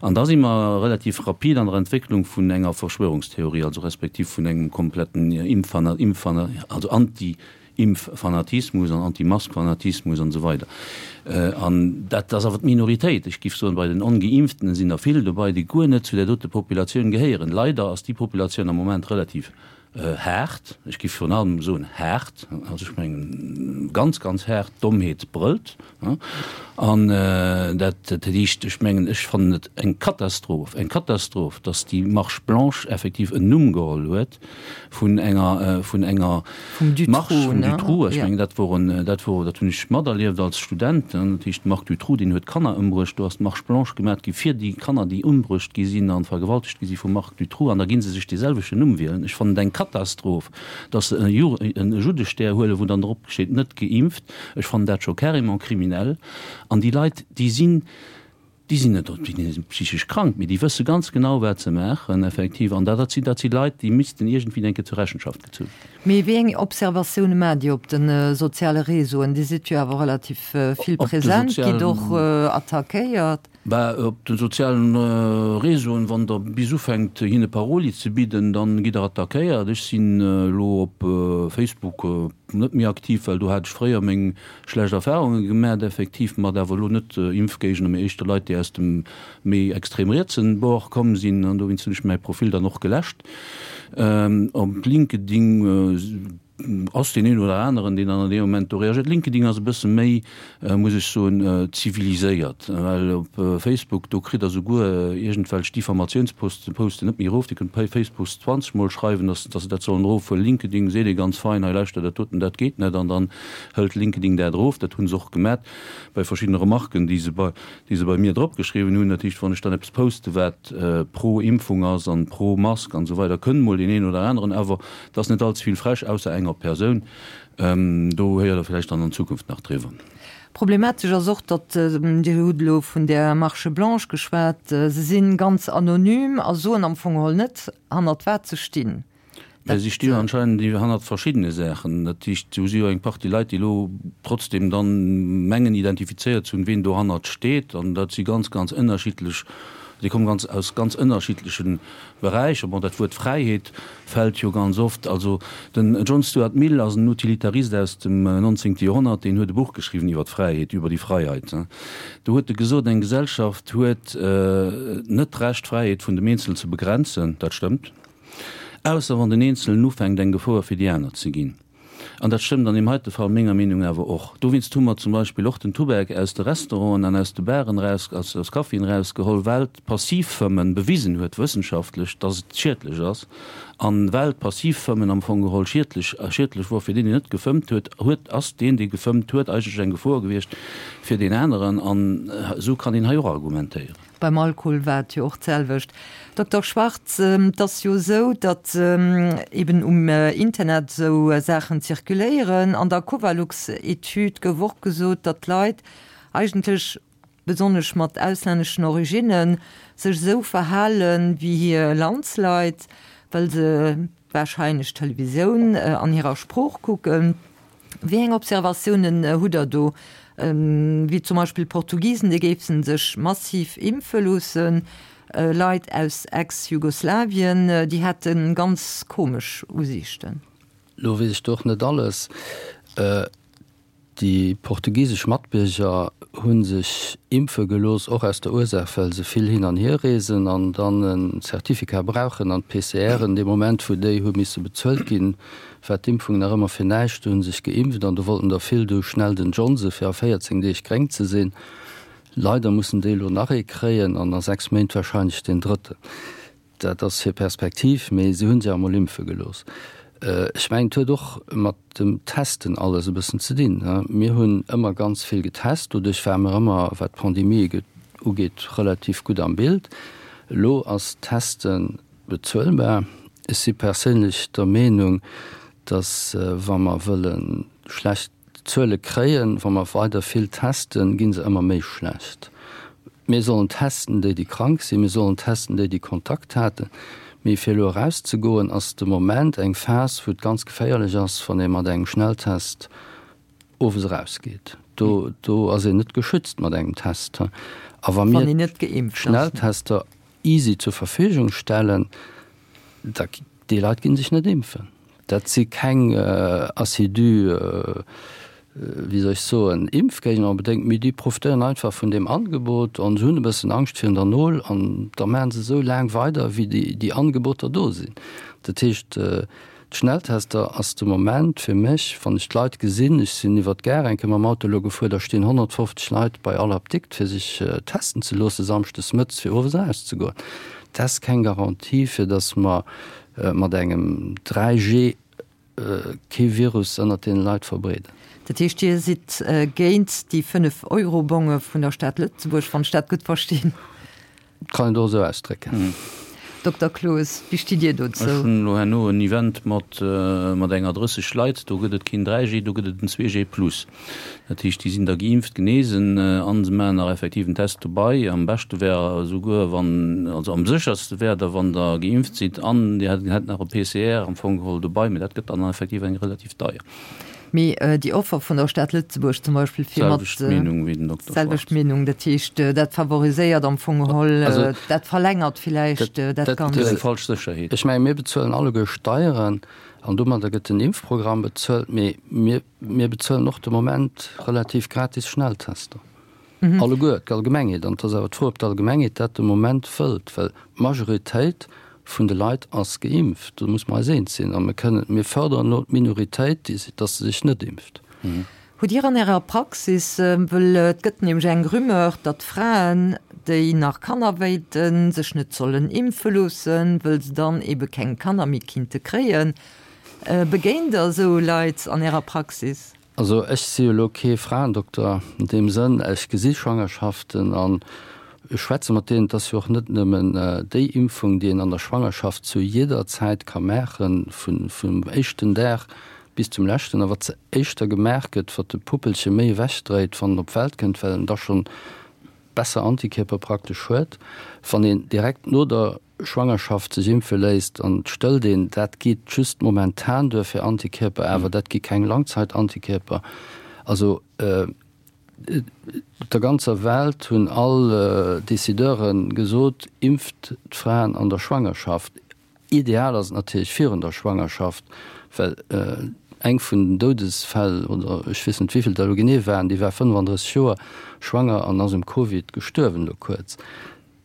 [SPEAKER 4] An da si mer relativ rapid an der Entwécklung vun enger Verschwörungstheorie, also respektiv vun engem kompletten Impffana-, Impffana-, also Anti-, Impffanatismus an Anti-Mask-Fanatismus an esou weider. An dat ass awer d'Minoritéit. Ech géif soen, bei den Ongeimpftene sinn der vill dobei, déi guer net zu där dote Populatioun gehéieren. Leider ass déi Populatioun am Moment relativ haart, ech géif virun allem soen haart, also ech mengen ganz, ganz haart, d'Dommheet brëllt. An dat heescht, ech mengen, ech fannen et eng Katastroph, eng Katastroph, datt déi Marche blanche effektiv en Numm geholl huet, vun enger vun enger Marche vum Dutroux. Ech mengen, dat wor en, dat wor, dat hunn ech materlieft als Student. Dat heescht, de Marc Dutroux, deen huet Kanner ëmbruecht. Do ass d'Marche blanche gemat gi fir déi Kanner, déi ëmbruecht gi sinn a vergewaltegt gi si vum Marc Dutroux. An da gi se sech dee selwechten Numm wielen. Ech fannen et eng Katastroph, datt se e Ju, e Juddestär huelen, wou dann drop steet, net geimpft. Ech fannen dat scho carrément kriminell. An déi Leit, déi sinn. Déi sinn net déi sinn psychesch krank, mee déi wësse ganz genau, wat se maachen, effektiv. An dat sinn, dat si Leit, déi missten iergendwéi eng Kéier zur Rechenschaft gezu ginn.
[SPEAKER 3] Mee wéi eng Observatioune maacht Dir op de soziale Réseauen? Dir sidd jo awer relativ vill present, gitt och attackéiert.
[SPEAKER 4] Bah, op de sozialen Réseauen, wann Der bis ufänkt hinne Paroli ze bidden, dann gitt Der attackéiert. Ech sinn elo op Facebook net méi aktiv, well do hat ech fréier meng schlecht Erfahrunge gemat, effektiv, mat awer elo net Impfgéigner, mee éischter Leit, déi aus dem méi extrem rietsen Bord komm sinn. An dowéinst hunn ech mäi Profil dann och geläscht. Op LinkedIn ass deen een oder aneren, deen dann an deem Moment do reagiert. LinkedIn ass e bësse méi, muss ech soen, ziviliséiert, well op Facebook, do kritt Der souguer iergendwelch Diffamatiounsposten Posten net méi erof. Dir kënnt bei Facebook 20 Mol schreiwen, dass dass se dat sollen erofhuelen. LinkedIn seet ee ganz fein, hei lauschter, dat doten, dat geet net, an dann hëlt LinkedIn dat erof. Dat hu se och gemat bei verschiddene Remarken, déi se bei déi se bei mir drop geschriwwen hunn. Dat heescht, wann ech dann eppes poste wat pro Impfung ass an pro Mask an esou weider, kënnt mol deen een oder aneren, awer et ass net all ze vill frech, ausser enger Persoun. Do héiert Der vläicht dann an Zukunft nach driwwer.
[SPEAKER 3] Problematesch ass och, datt, Dir hutt elo vun där Marche blanche geschwat, se si ganz anonym a soen am Fong geholl net, hannert wat se stinn.
[SPEAKER 4] Mä si sti jo anscheinend hannert verschiddene Saachen. Dat heescht, do si jo eng Partie Leit, déi elo trotzdem dann mengen identifizéiert ze hunn, ween dohannert steet. An dat si ganz, ganz ënnerschiddlech, déi komme ganz aus ganz ënnerschiddleche Beräicher. Bon, dat Wuert Fräiheet fält jo ganz oft. Also den John Stuart Mill ass en Utilitarist aus dem nonzéngte Joerhonnert, deen huet e Buch geschriwwen iwwer d'Fräiheet, Über die Freiheit. Do huet e gesot, eng Gesellschaft huet net d'Recht, d'Fräiheet vun dem Eenzelen ze begrenzen. Dat stëmmt. Ausser wann den Eenzelen ufänkt eng Gefoer fir déi aner ze ginn. An dat stëmmt an deem heite Fall menger Meenung awer och. Dowéinst hu mer zum Beispill och den Tubak aus de Restauranten an aus de Baren eraus, aus Caféen erausgeholl, well d'Passivfëmmen bewisen huet wëssenschaftlech, dass et schiedlech ass. An well d'Passivfëmmen am Fong geholl schiedlech, schiedlech wor fir deen, deen net gefëmmt huet, huet, ass deen, dee gefëmmt huet, eigentlech eng Gefor gewiescht fir deen aneren. An esou kann een hei och argumentéieren.
[SPEAKER 3] Beim Alkohol war et jo och d'selwecht. Dokter Schwartz, et ass jo esou, datt eben um Internet esou Saachen zirkuléieren. An der Covalux-Etüd gouf och gesot, datt d'Leit eigentlech, besonnesch mat auslänneschen Originnen, sech esou verhale wéi hir Landsleit, well se warscheinlech d'Televisioun an hirer Sprooch kucken. Wéi eng Observatiounen hutt Der do, wéi zum Beispill d'Portugisen, déi géifen sech massiv impfe loossen, Leit aus Ex-Jugoslawien, déi hätte ganz komesch Usiichten?
[SPEAKER 5] Lo weess ech do och net alles. Déi portugisesch Matbierger hu sech impfe gelooss, och aus der Ursaach, well se vill hin an hier reesen an dann e Certificat brauchen an d'PCRen, dee Moment wou déi hu misse bezuelt ginn, war d'Impfung nach ëmmer fir näischt. Do hu sech geimpft an do wollten der vill du schnell den Johnson, fir a 14 Deeg gréng ze sinn. Leider mussen déi elo nach ee kréien an a 6 Méint warscheinlech deen drëtten. Dat ass hir Perspektiv, mee se hu sech emol impfe gelooss. Ech mengen, et huet och mat dem Testen alles e bëssen ze dinn. Mir hunn ëmmer ganz vill getest, doduerch ware mer ëmmer, wat d'Pandemie ugeet, relativ gutt am Bild. Elo ass d'Testen Bezuelbar. Ech si perséinlech der Meenung, datt wa mer wëlle schlecht Zuele kréien, wa mer weider vill testen, gi se ëmmer méi schlecht. Mir sollen testen déi, déi krank sinn, mir sollen testen déi, déi Kontakt haten. Mee fir elo erauszegoen, ass de Moment eng Phas, wou et ganz geféierlech ass, wann ee mat engem Schnelltest owes erausgeet. Do, do ass een net geschützt mat engem Test. A wa mir Schnelltester easy zur Verfügung stellen, da déi Leit ginn sech net impfen. Dat si keng assidu, wéi soll ech soen, Impfgéigner onbedéngt, mee déi profitéieren einfach vun deem Angebot an se hunn e bëssen Angscht virun der Nol an da maache se esou laang weider, wéi déi Angeboter do sinn. Dat heescht, D'Schnelltester ass de Moment fir mech, wann ech d'Leit gesinn, ech sinn iwwer d'Gare eng Kéier mam Auto elo gefuer, da stinn 150 Leit bei all Apdikt fir sech testen ze loosse samschdes mëttes fir owes erauszegoen. Dat ass keng Garantie fir datt mer mat engem 3G kee Virus ënnert deene Leit verbreeden.
[SPEAKER 3] Dat heescht, Dir sidd géint déi 5 Euro-Bonge vun der Stad Lëtzebuerg, wann ech dat gutt verstinn?
[SPEAKER 5] Kann een och esou ausdrécken.
[SPEAKER 3] Dokter Cloos, wéi stitt Dir dozou?
[SPEAKER 4] Ech hunn elo herno en Event mat mat enger 30 Leit, do gëtt et keen 3G, do gëtt et en 2G plus. Dat heescht, déi sinn da geimpft, genesen an se maachen nach effektiv en Test dobei. Am beschte wär esouguer wann, also am sécherste wär da wann Der geimpft sidd an Dir hätt nach e PCR am Fong geholl dobei, mee dat gëtt dann effektiv eng relativ deier.
[SPEAKER 3] Mee déi Offer vun der Stad Lëtzebuerg zum Beispill fir mat.
[SPEAKER 4] Selwecht Meenung wéi den Dokter
[SPEAKER 3] Schwartz. Selwecht Meenung, dat heescht, dat favoriséiert am Fong geholl, dat verlängert villäicht dat Ganzt.
[SPEAKER 4] Dat ass eng falsch Sécherheet.
[SPEAKER 5] Ech menge mir bezuelen alleguer Steieren an domadder gëtt den Impfprogramm bezuelt, mee mir bezuelen och de Moment relativ gratis Schnelltester. Alleguer, d'Allgemengheet. An et ass awer d'Fro, ob d'Allgemengheet dat de Moment wëllt, well d'Majoritéit vun de Leit ass geimpft. Do muss mer eis eens sinn. A mir kënnen, mir fërderen elo d'Minoritéit, déi, dass se sech net impft.
[SPEAKER 3] Hutt Dir an Ärer Praxis, wëll et gëtt nämlech eng Rumeur, datt Fraen, déi nach Kanner wéilten, sech net sollen impfe loossen, wëll se dann ebe keng Kanner méi kinnte kréien, begéint Der esou Leit an Ärer Praxis?
[SPEAKER 5] Also ech si jo elo kee Fraendokter an deem Sënn, ech gesi Schwangerschaften an ech schwätze mat deenen. Et ass jo och net nëmmen déi Impfung, déi een an der Schwangerschaft zu jidder Zäit ka maachen, vum éischten Dag bis zum leschten, a wat se éischter gemaach gëtt, wat de Puppelche méi ewechdréit, wann en op d'Welt kënnt, well en da schonn besser Antikierper praktesch huet. Wann een direkt no der Schwangerschaft sech impfe léisst an et stëllt een, dat geet just momentan duer fir Antikierper, awer dat gi keng Langzeitantikierper. Also op der ganzer Welt hunn all Decideure gesot, impft d'Fraen an der Schwangerschaft. Ideal ass et natierlech virun der Schwangerschaft, well eng vun den Doudesfäll, oder ech weess net wéivill der elo genee waren, déi war 35 Joer schwanger an ass um Covid gestuerwen elo kuerz.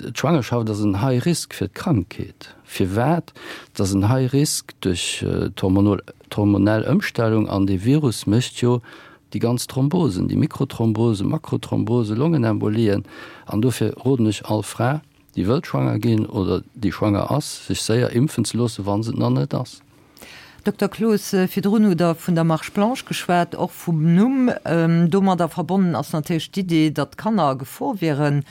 [SPEAKER 5] D'Schwangerschaft ass en High Risk fir d'Krankheet. Firwat? Et ass en High Risk duerch d'hormonell Ëmstellung an dee Virus mécht jo déi ganz Thrombosen, déi Mikrothrombosen, Makrothrombosen, Longenembolien. An dofir roden ech all Fra, déi wëllt schwanger ginn oder déi schwanger ass, sech séier impfen ze loossen, wa se et nach net ass.
[SPEAKER 3] Dokter Cloos, virdrun hutt Der vun der Marche blanche geschwat, och vum Numm. Domadder verbonnen ass natierlech d'Idee, datt Kanner a Gefor wieren.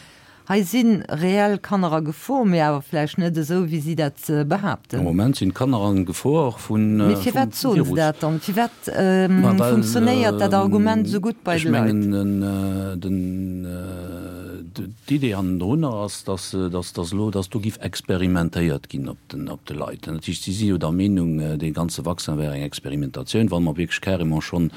[SPEAKER 3] Hei si reell Kanner a Gefor, mee awer vläicht net esou, wéi si dat behaapten.
[SPEAKER 4] Am Moment sinn d'Kanner a Gefor vum Virus.
[SPEAKER 3] Mee firwat soen se dat dann? Firwat funktionéiert dat Argument esou gutt bei de Leit?
[SPEAKER 4] Ech mengen, d'Idee hannendrunner ass, dass elo, dass do giff experimentéiert ginn op de Leit. Dat heescht, si si jo der Meenung, dee ganze Vaccin wär eng Experimentatioun, wa mer wierklech carrément schonn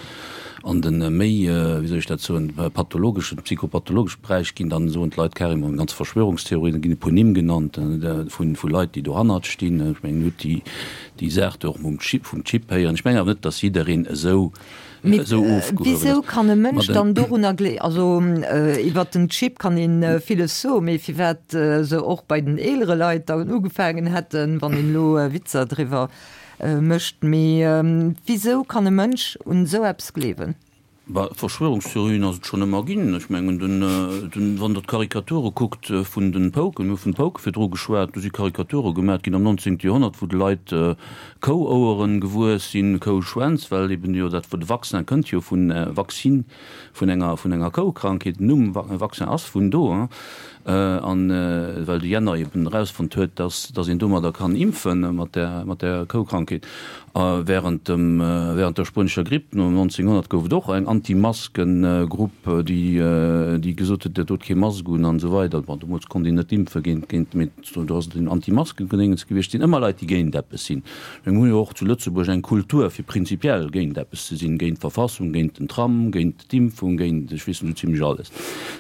[SPEAKER 4] an de méi, wéi soll ech dat soen, pathologeschen, psychopathologesche Beräich ginn, dann soen d'Leit carrément ganz Verschwörungstheorien, da ginn e puer Nimm genannt vu Leit, déi dohannert stinn. Ech mengen, Dir hutt déi, déi Saach do och mam Chip, vum Chip héieren. Ech mengen awer net, datt jiddereen esou,
[SPEAKER 3] Mee
[SPEAKER 4] esou ofgehuewen ass.
[SPEAKER 3] wisou kann e Mënsch dann dorunner glee, also iwwert den Chip kann ee villes soen, mee firwat se och bei den eelere Leit dann ugefaangen hätten, wann een elo Witzer driwwer Mécht. Mee wisou kann e Mënsch un esou eppes gleewen?
[SPEAKER 4] Bah, Verschwörungstheorien ass et schonn ëmmer ginn. Ech mengen, den, den, wann Der d'Karikature kuckt vun den Pouken, mir hu vun de Pouke virdru geschwat, do si Karikature gemat ginn am 19. Joerhonnert, wou de Leit Kououeren gewuess sinn, Kouschwänz, well eben jo dat, de Vaccin kënnt jo vun Vaccine, vun enger, vun enger Koukrankheet, den Numm Vaccin ass vun do, hein. An well de Jenner eben erausfonnt huet, dass dass een domadder kann impfen, mat där mat där Koukrankheet. A während dem während der spuenescher Gripp no 1900 gouf et och eng Anti-Masken-Grupp, déi déi gesot huet, dat dot kee Mask un an esou weider. Bon, deemools konnt een net impfe géint géint, mee do ass et en Anti-Masken-Gedéngens gewiescht. Et sinn ëmmer Leit, déi géint eppes sinn. Mir hu jo och zu Lëtzebuerg eng Kultur, fir prinzipiell géint eppes ze sinn, géint d'Verfassung, géint den Tram, géint D'Impfung géint, ech weess net, esou zimlech alles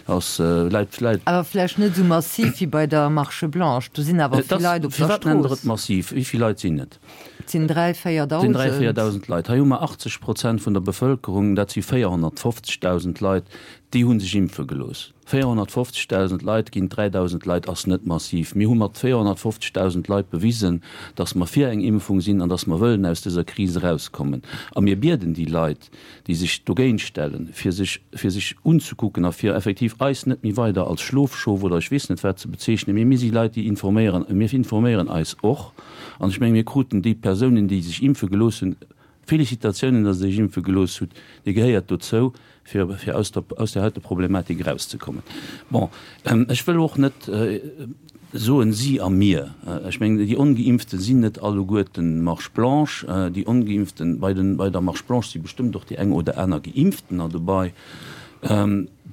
[SPEAKER 4] ass, läit, läit.
[SPEAKER 3] Awer vläicht net esou massiv wéi bei der Marche blanche. Do sinn awer vill Leit op der Strooss.
[SPEAKER 4] Firwat nennt Der et massiv? Wéi vill Leit sinn et?
[SPEAKER 3] Et sinn 3,
[SPEAKER 4] 4.000. Et sinn 3, 4.000 Leit. Hei hu mer 80 Prozent vun der Bevëlkerung, dat si 450.000 Leit, déi hu sech impfe gelooss. 450.000 Leit géint 3.000 Leit ass net massiv. Mir hu mat 450.000 Leit bewisen, datt mer fir eng Impfung sinn an datt mer wëllen aus dëser Kris erauskommen. A mir bieden déi Leit, déi sech dogéint stellen, fir sech, fir sech unzekucken a fir effektiv eis net méi weider als Schlofschof oder ech weess net wat ze bezeechnen, mee mir si Leit, déi informéieren, mir informéieren eis och. An ech menge mir kruten déi Persounen, déi sech impfe gelooss hunn, Félicitatiounen, datt Der Iech impfe gelooss hutt, Dir gehéiert dozou, fir fir aus der aus der heite Problematik erauszekommen. Bon, ech wëll och net soen si a mir. Ech mengen, déi Ongeimpfte sinn net alleguerten Marche blanche. Déi Ongeimpften, bei den bei der Marche blanche si bestëmmt och déi eng oder aner Geimpftener dobei.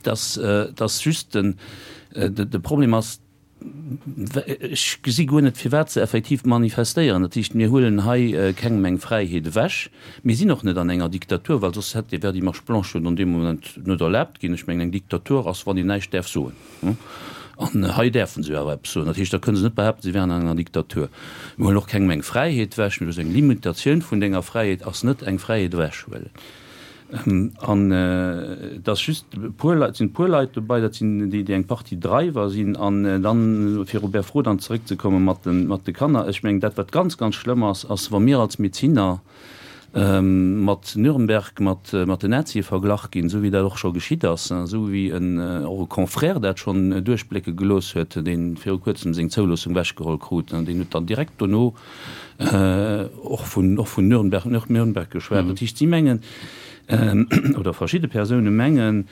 [SPEAKER 4] Dass dass just den de Problem ass, Ech gesi guer net, firwat se effektiv manifestéieren. Dat heescht, mir huelen hei kengem eng Fräiheet ewech. Mir sinn och net an enger Diktatur, well soss hätt, wär déi Marche blanche jo an deem Moment net erlaabt ginn. Ech mengen, eng Diktatur ass, wann een näischt däerf soen. An hei däerfe se jo awer eppes soen. Dat heescht, da kënne se net behaapten, si wären an enger Diktatur. Mir huelen och kengem eng Fräiheet ewech. Mee eng Limitatioun vun denger Fräiheet ass net eng Fräiheet ewechhuelen. An et ass just e puer Leit, et sinn e puer Leit dobei, dat sinn déi, déi eng Partie Driver sinn. An dann, fir op Är Fro dann zeréckzekomme mat de, mat de Kanner, ech mengen, dat wat ganz, ganz schlëmm ass, ass wa mir als Medezinner mat Nürnberg, mat, mat den Nazie verglach ginn, esou wéi dat och scho geschitt ass, esou wéi en, och e Confrère dat schonn duerchblécke gelooss huet, dee viru kuerzem seng Zouloossung ewechgeholl krut, deen huet dann direkt dono, och vun, och vun Nürnberg, Nürnberg geschwat. Dat heescht, si mengen, oder verschidde Persoune mengen,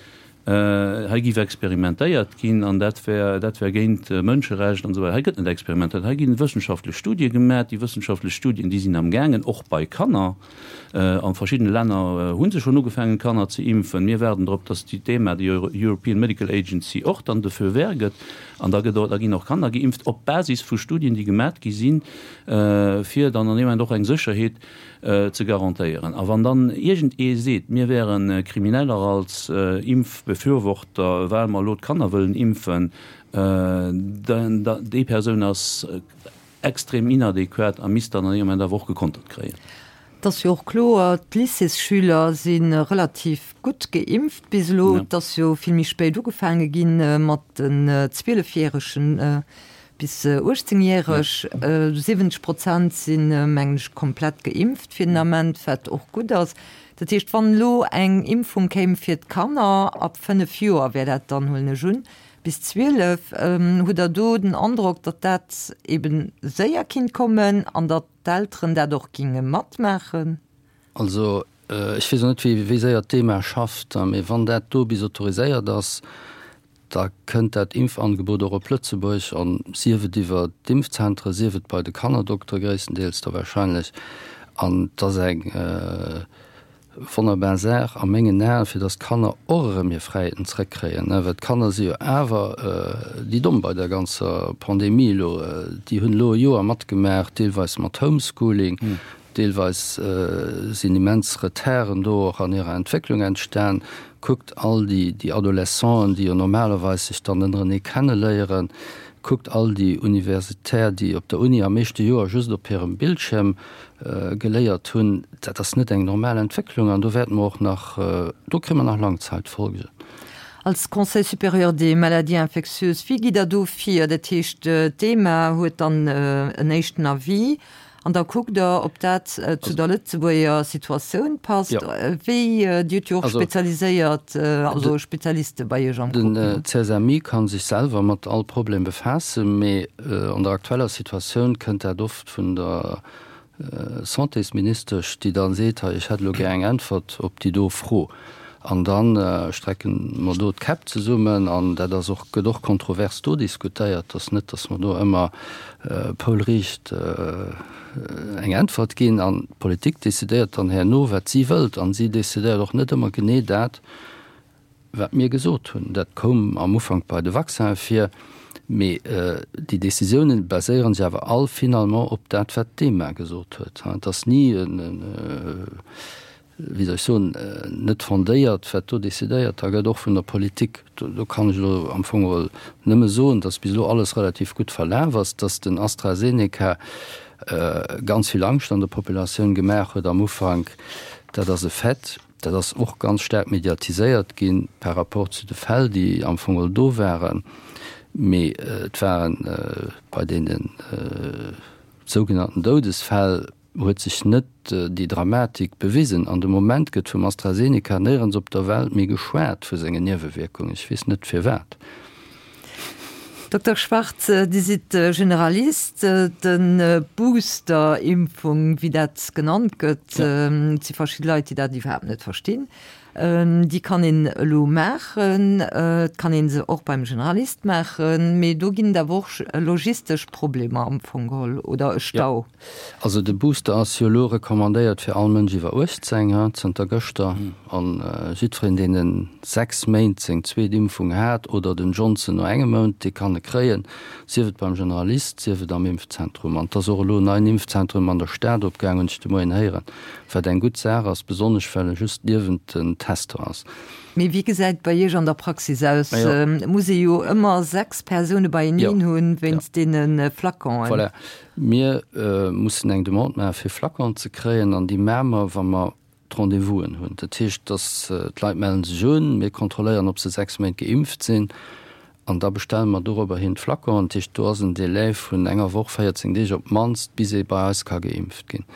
[SPEAKER 4] hei géif experimentéiert ginn an dat wär, dat wär géint Mënscherecht an esou weider. Hei gëtt net experimentéiert, hei gi wëssenschaftlech Studie gemaach. Déi wëssenschaftlech Studien, déi sinn amgaangen, och bei Kanner. A verschiddene Länner hu se schonn ugefaangen, Kanner ze impfen. Mir waarden drop, datt déi d'EMA, déi European Medical Agency, och dann de Feu vert gëtt. An da gëtt och, da ginn och Kanner geimpft op Basis vu Studien, déi gemat gi sinn, fir dann an deem Moment och eng Sécherheet ze garantéieren. A wann dann iergend ee seet, mir wäre Krimineller als Impfbefürworter, well mer elo d'Kanner wëllen impfen, dann, déi Persoun ass extrem inadequat a misst dann an deem Moment awer och gekontert kréien.
[SPEAKER 3] Et ass jo och kloer, d'Lycéesschüler si relativ gutt geimpft bis elo. Et ass jo vill méi spéit ugefaange gi mat den Zwielefjäregen bis Uechtzéngjäreg. 70 Prozent sinn, mengen ech, komplett geimpft fir den Ament, wat och gutt ass. Dat heescht, wann elo eng Impfung kéim fir d'Kanner ab 5 Joer, wär dat dann, huelen ech un, bis 12. Hutt Der do den Androck, datt dat eebe séier kinnt kommen an datt d'Elteren dat och ginge matmaachen?
[SPEAKER 5] Also ech weess och net, wéi séier d'EMA schafft, mee wann dat do bis autoriséiert ass, da kënnt dat Impfangebot och op Lëtzebuerg, an sief et iwwer d'Impfzentre, sief et bei de Kannerdoktere gréisstendeels da wahrscheinlech. An et ass eng Wonnerbar Saach a mengen Aen, fir dass d'Kanner och erëm hir Fräiheeten zrëckkréien, well d'Kanner si jo awer déi Domm bei der ganzer Pandemie elo. Déi hunn elo e Joer matgemaach, deelweis mat Homeschooling, deelweis sinn immens Retarden do och an hirer Entwécklung entstan. Kuckt all déi Adolescenten, déi jo normalerweis sech dann ënnerenee kenneléieren, kuckt all déi Universitaire, déi op der Uni am éischte Joer just op hirem Bildschierm geléiert hunn, dat ass net eng normal Entwécklung an do wäerte mer och nach, do kréie mer nach Langzeitfolgen.
[SPEAKER 3] Als Conseil supérieur des maladies infectieuses, wéi gitt Der do vir? Dat heescht, d'EMA huet dann en éischten Avis an da kuckt Der, ob dat zu der Lëtzebuerger Situatioun passt. Wéi, Dir hutt jo och spezialiséiert, also Spezialiste bei Iech am
[SPEAKER 5] Grupp. Den CSMI ka sech selwer mat all Problem befaassen, mee an der aktueller Situatioun kënnt dat oft vun der Santésministesch, déi da seet, hei ech hätt elo gär eng Äntwert op déi do Fro. An da strecke mer do d'Käpp zesummen an dat ass och, gëtt och kontrovers do diskutéiert. Et ass net, datt mer do ëmmer poulriicht eng Äntwert ginn. An d'Politik decidéiert dann herno, wat si wëllt. An si decidéiert och net ëmmer genee dat, Wat mir gesot hunn, dat koum am Ufank bei de Vaccinen vir, mee déi Décisiounen baséiere sech awer all finalement op dat, wat d'EMA gesot huet. Et ass ni, wéi soll ech soen, net fondéiert, wat do décidéiert da gëtt, och vun der Politik. Do kann ech elo am Fong geholl nëmme soen, datt bis elo alles relativ gutt verlaf ass, datt den AstraZeneca ganz vill Angscht an der Populatioun gemaach huet am Ufank, dat ass e Fait. Dat ass och ganz staark mediatiséiert gi par rapport zu de Fäll, déi am Fong geholl do waren. Mee et waren bei deene sougenannten Doudesfäll huet sech net déi Dramatik bewisen. An de Moment gëtt vum AstraZeneca néierens op der Welt méi geschwat vu sengen Niewewierkungen. Ech weess net firwat.
[SPEAKER 3] Dokter Schwartz, Dir sidd Generalist. De Booster-Impfung, wéi dat genannt gëtt, et si verschidde Leit, déi dat iwwerhaapt net verstinn, déi kann een elo maachen. Et kann ee se och beim Generalist maachen, mee do ginn et awer och logistesch Problemer am Fong geholl oder e Stau.
[SPEAKER 5] Also de Booster ass jo elo recommandéiert fir all Mënsch iwwer 18, ha, zënter gëschter. An jiddwereen, deen en 6 Méint seng zweet Impfung hat oder den Johnson no engem Mount, dee kann e kréien, sief et beim Generalist, sief et am Impfzentrum. An et ass och elo en neien Impfzentrum an der Stad opgaang, hunn ech de Moien héieren, wat eng gutt Saach ass, besonnesch well e just niewent den Tester ass.
[SPEAKER 3] Mee wéi gesäit et bei Iech an der Praxis aus? Et muss ee jo ëmmer 6 Persoune beieneen hunn, wéinst deene Flaconen.
[SPEAKER 5] Voilà. Mir mussen eng Demande maache fir Flaconen ze kréien an déi maache mer, wa mer d'Rendez-vousen hunn. Dat heescht, dass d'Leit mellen sech un, mir kontrolléieren, ob se 6 Méint geimpft sinn an da bestelle mer dorobber hin d'Flaconen. Dat heescht, do ass en Délai vun enger Woch, 14 Deeg op d'mannst, bis ee bei eis ka geimpft ginn.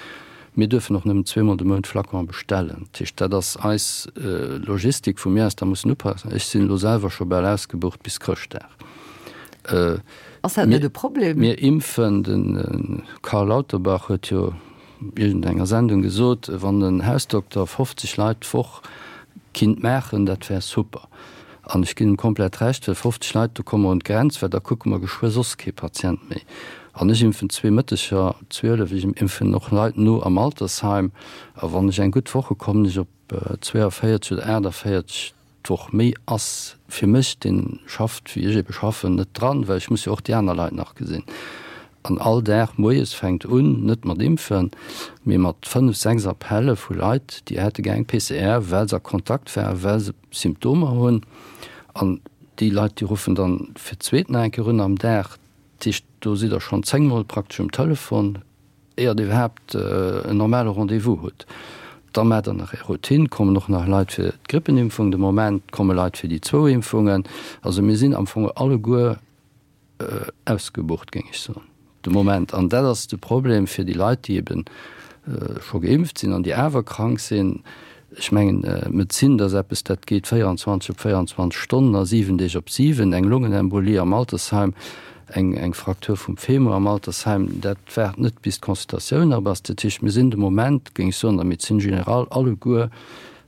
[SPEAKER 5] Mir duerfen och nëmmen zweemol de Mount Flaconen bestellen. Dat heescht, dat ass eis Logistik, wou mir eis da mussen upassen. Ech sinn elo selwer scho bal ausgebucht bis Chrëschtdag.
[SPEAKER 3] Ass dat net e Problem?
[SPEAKER 5] Mir impfen, de Karl Lauterbach huet jo iergendenger Sendung gesot, wann en Hausdokter 50 Leit d'Woch kinnt maachen, dat wär super. An ech ginn em komplett Recht, well 50 Leit, do komme mer un d'Grenz, well da kucke mer geschwë soss kee Patient méi. An ech impfen zwee Mëtteger, 12, ech impfen och Leit no am Altersheim. A wann ech eng gutt Woch hu kommen ech op 42 oder 48. D'Woch méi ass fir mech, deen schafft wéi ech ebe schaffen, net dran, well ech muss jo och déi aner Leit nach gesinn. An all Dag moies fänkt un, net mat Impfen, mee mat 5, 6 Appelle vu Leit, déi hätte gär eng PCR, well se a Kontakt waren, well se Symptomer hunn. An déi Leit, déi ruffen dann fir d'zweet nach eng Kéier un am Dag. Dat heescht, do sidd Der schonn zéngmol praktesch um Telefon. Éiert Dir iwwerhaapt en normale Rendez-vous hutt, da maacht Der nach Är Routine, kommen och nach Leit fir d'Grippenimpfung, de Moment komme Leit fir déi zwou Impfungen. Also mir sinn am Fong alleguer ausgebucht, géing ech soen, de Moment. An dat ass de Problem fir déi Leit, déi ebe scho geimpft sinn an déi awer krank sinn. Ech mengen, Medezin, dat ass eppes, dat geet 24 op 24 Stonnen a 7 Deeg op 7. Eng Longenembolie am Altersheim, eng Fraktur vum Femur am Altersheim, dat waart net, bis d'Consultatioun op ass. Dat heescht, mir sinn de Moment, géing ech soen, an der Médecine générale alleguer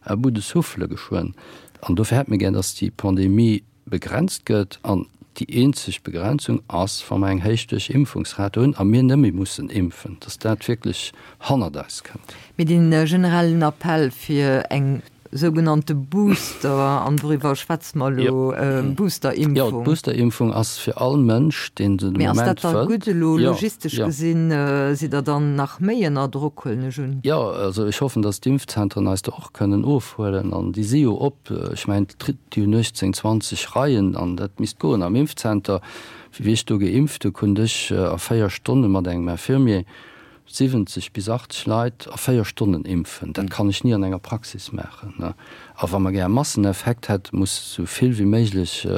[SPEAKER 5] à bout de souffle geschwënn. An dofir hätt mir gär, dass déi Pandemie begrenzt gëtt an déi eenzeg Begrenzung ass, wa mer eng héich Duerchimpfungsrate hunn a mir net méi mussen impfen, dass dat wierklech hannert eis kënnt.
[SPEAKER 3] Mee dee generellen Appell fir eng sougenannte Booster, an doriwwer schwätze mer elo, Boosterimpfung.
[SPEAKER 5] Jo, d'Boosterimpfung ass fir all Mënsch, deen se de
[SPEAKER 3] Mee ass
[SPEAKER 5] Moment
[SPEAKER 3] dat da
[SPEAKER 5] wëll.
[SPEAKER 3] gutt elo logistesch gesinn? Sidd Der dann nach méi ënner Drock, huelen ech un?
[SPEAKER 5] Jo, also ech hoffen, dass d'Impfzentren eis do och kënnen ofhuelen an déi si jo op. Ech mengen, Déi hunn 18, 20 Reien an dat misst goen. Am Impfzenter, wéi ech do geimpft hu, konnt ech a 4 Stonne mat engem Infirmier 70 bis 80 Leit a 4 Stonnen impfen. Dat kann ech ni an enger Praxis maachen. A wa mer gär e Masseneffekt hätt, muss esou vill wéi méiglech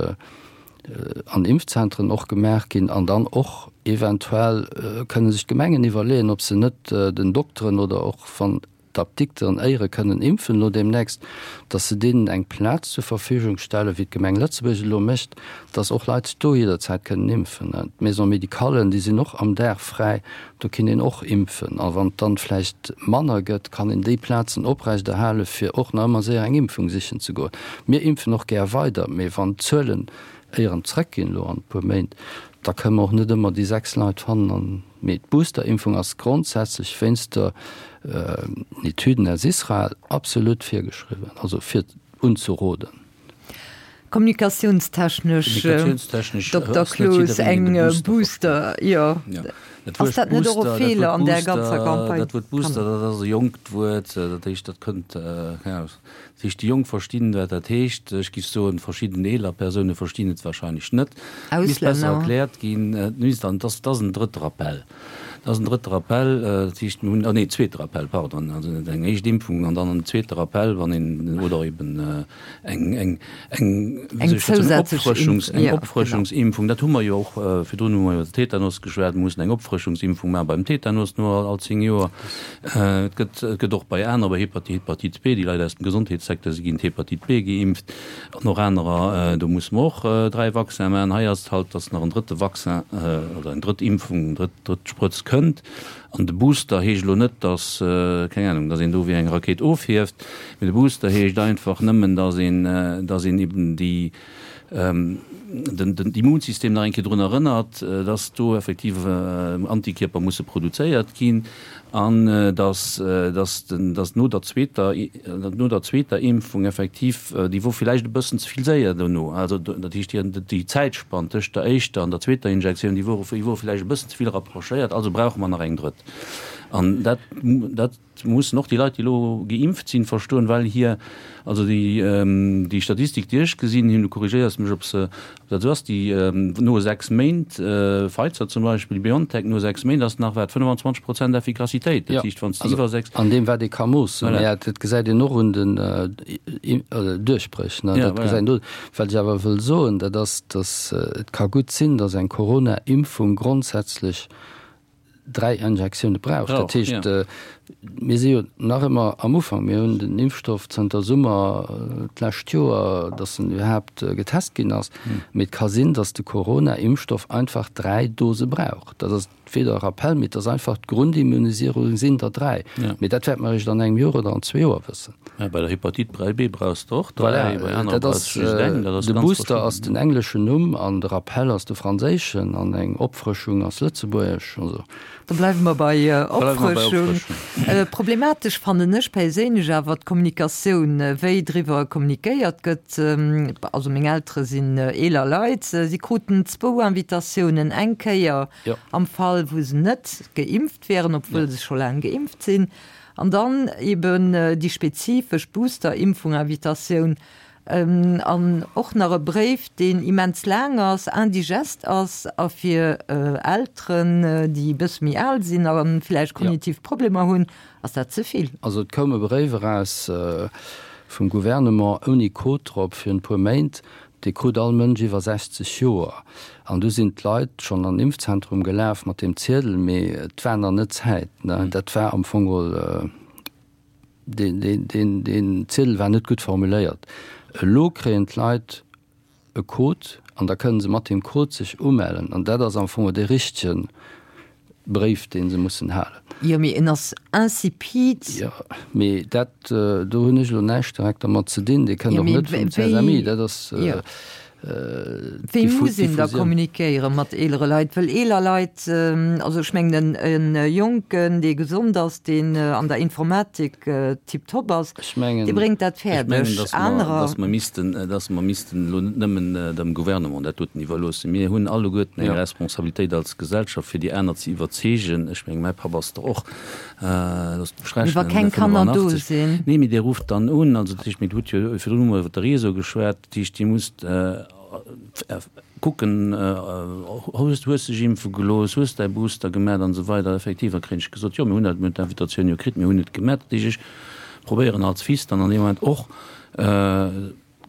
[SPEAKER 5] an Impfzentren och gemaach ginn. An dann och eventuell kënne sech d'Gemengen iwwerleeën, ob se net den Dokteren oder och wann d'Apdikteren éiere kënnen impfen elo deemnächst, dass se deenen eng Plaz zur Verfügung stellen, wéi d'Gemeng Lëtzebuerg et elo mécht, dass och Leit do jidderzäit kënnen impfen. D'Maison-médicallen, déi sinn och am Dag fräi, do kinnt een och impfen. A wann et dann vläicht manner gëtt, kann een déi Plazen oprechterhalen, fir och nach ëmmer séier eng Impfung sichen ze goen. Mir impfen och gär weider, mee wann d'Zuelen éieren zrëckginn elo an e puer Méint, da kënnen mer och net ëmmer déi 6 Leit fannen an Mee d'Boosterimpfung ass grondsätzlech wéinst der Etüden aus Israel absolut virgeschriwwen, also fir unzeroden.
[SPEAKER 3] Kommunikatiounstechnesch, Dokter Cloos, eng Booster, jo. Ass dat net och e Feeler an där ganzer Campagne?
[SPEAKER 4] Dat Wuert Booster, dat ass e jonkt Wuert, dat heescht, dat kënnt, keng Ahnung, Dat heescht, déi Jonk verstinn, wat dat heescht. Ech géif soen, verschidden eeler Persoune verstinn et wahrscheinlech net. Et misst besser erkläert ginn. Et misst an, et ass, et ass en drëtter Appell. Dat ass en drëtte Rappel, dat heescht mir hunn, ah nee, zweete Rappel, pardon, also net eng éischt Impfung an dann en zweete Rappel, wann een, oder eben eng, eng, eng, wéi soll ech dat soen, Opfrëschungs, eng Opfrëschungsimpfung. Dat hu mer jo och, virdrun hu mer iwwer de Tetanus geschwat, mir mussen eng Opfrëschungsimpfung maache beim Tetanus no all 10 Joer. Et gëtt, et gëtt och bei aner, bei Hepatite, Hepatite B, déi Leit aus dem Gesondheetssecteur, si ginn d'Hepatite B geimpft an och anerer, do musse mer och 3 Vaccinen maachen. Hei ass et halt, dass nach en drëtte Vaccin oder eng drëtt Impfung, eng drëtt, drëtt Sprëtz kënnt. An de Booster heescht elo net, dass, keng Ahnung, dass een do wéi eng Rakéit ofhieft, mee de Booster heescht einfach nëmmen, dass een, dass een eben déi, den, den Immunsystem nach eng Kéier drun erënnert, dass do effektiv Antikierper musse produzéiert ginn an dass, dass den, dass no der zweeter, no der zweeter Impfung effektiv, déi wor villäicht e bëssen ze vill séier dono, also dat heescht déi, déi Zäitspann tëscht der éischter an der zweeter Injektioun, déi wor, déi wor villäicht e bëssen ze vill rapprochéiert, also brauche mer nach eng drëtt. An dat, dat mussen och déi Leit, déi elo geimpft sinn, verstoen, well hir, also déi, déi Statistik, déi ech gesinn hunn, du korrigéiers mech, ob se, ob dat esou ass, déi no 6 Méint, Pfizer zum Beispill, BioNTech, no 6 Méint ass nach wat 25 Prozent Effikassitéit. Dat heescht, wann s de iwwer 6.
[SPEAKER 5] An deem, wat ee ka moossen. Voilà. Mä dat gesäit een och un den Duerchbréch, ne? Dat gesäit een do. Wat ech awer wëll soen, dat ass, datt et ka gutt sinn, datt eng Corona-Impfung grondsätzlech 3 Injektioune brauch. Dat heescht, mir si jo nach ëmmer am Ufank. Mir hunn den Impfstoff zënter Summer d'lescht Joer, datt en iwwerhaapt getest ginn ass. Mee et ka sinn, datt de Corona-Impfstoff einfach 3 Dose brauch. Dat ass weder e Rappell, mee et ass einfach d'Grundimmunisierung sinn der 3. Mee dat wäerte mer eréischt an engem Joer oder an zwee Joer wëssen.
[SPEAKER 4] Ja, bei der Hepatite 3B brauchs de och 3, bei anere
[SPEAKER 5] brauchs de just eng. Dat ass De Booster ass den engleschen Numm an de Rappell ass de franséischen an eng Opfrëschung ass lëtzebuergesch. Also.
[SPEAKER 3] Da bleiwe mer bei Opfrëschung. Problematesch fannen ech perséinlech awer d'Kommunikatioun, wéi driwwer kommunikéiert gëtt. Also meng Eltere sinn eeler Leit, si kruten zwou Invitatiounen, eng Kéier am Fall wou se net geimpft wären, obwuel se scho laang geimpft sinn, An dann eben déi spezifesch Booster-Impfung-Invitatioun an och nach e Bréif, deen immens laang ass, indigest ass a fir Elteren, déi e bësse méi al sinn a vläicht kognitiv Problemer hunn, ass dat ze vill.
[SPEAKER 5] Also et koum e Bréif eraus vum Gouvernement ouni Code drop virun e puer Méint, Dee krut all Mënsch iwwer 60 Joer. An du sinn d'Leit schonn an den Impfzentrum gelaf mat deem Ziedel, mee et war nach net Zäit. Dat war am Fong geholl, deen Ziedel war net gutt formuléiert. Elo kréien d'Leit e Code an da kënne se mat deem Code sech umellen. An dat ass am Fong dee richtegen Bréif, dee se mussen halen.
[SPEAKER 3] Jo, mee en ass insipid.
[SPEAKER 5] Jo, mee dat, do hunn ech elo näischt direkt dermat ze dinn. Dee kënnt och net vum CSMI. Dat ass
[SPEAKER 3] Wéi muss een da kommunikéiere mat eelere Leit? Well eeler Leit, also ech mengen en Jonken, dee gesond ass, deen an der Informatik tiptop ass, dee bréngt dat fäerdeg.
[SPEAKER 4] Ech mengen, dass mer missten, dass mer missten elo net nëmmen dem Gouvernement dat doten iwwerloossen. Mir hunn alleguerten eng Responsabilitéit als Gesellschaft, fir déi aner ze iwwerzeegen. Ech mengen, mäi Papp ass der och, loosst mech
[SPEAKER 3] rechnen, Wa keng Kanner do sinn.
[SPEAKER 4] Nee, mee Dir rufft dann un. Also dat heescht, mir hutt jo virdrun hu mer iwwer de Réseau geschwat. Dat heescht, Dir musst kucken, hues hues dech impfe gelooss, hues däi Booster gemat an esou weider. Effektiv, da kréien ech gesot, jo mir hunn dat, mir hunn d'Invitatioun jo kritt, mir hunn et gemat. Dat heescht, ech probéieren als Fils dann an deem Moment och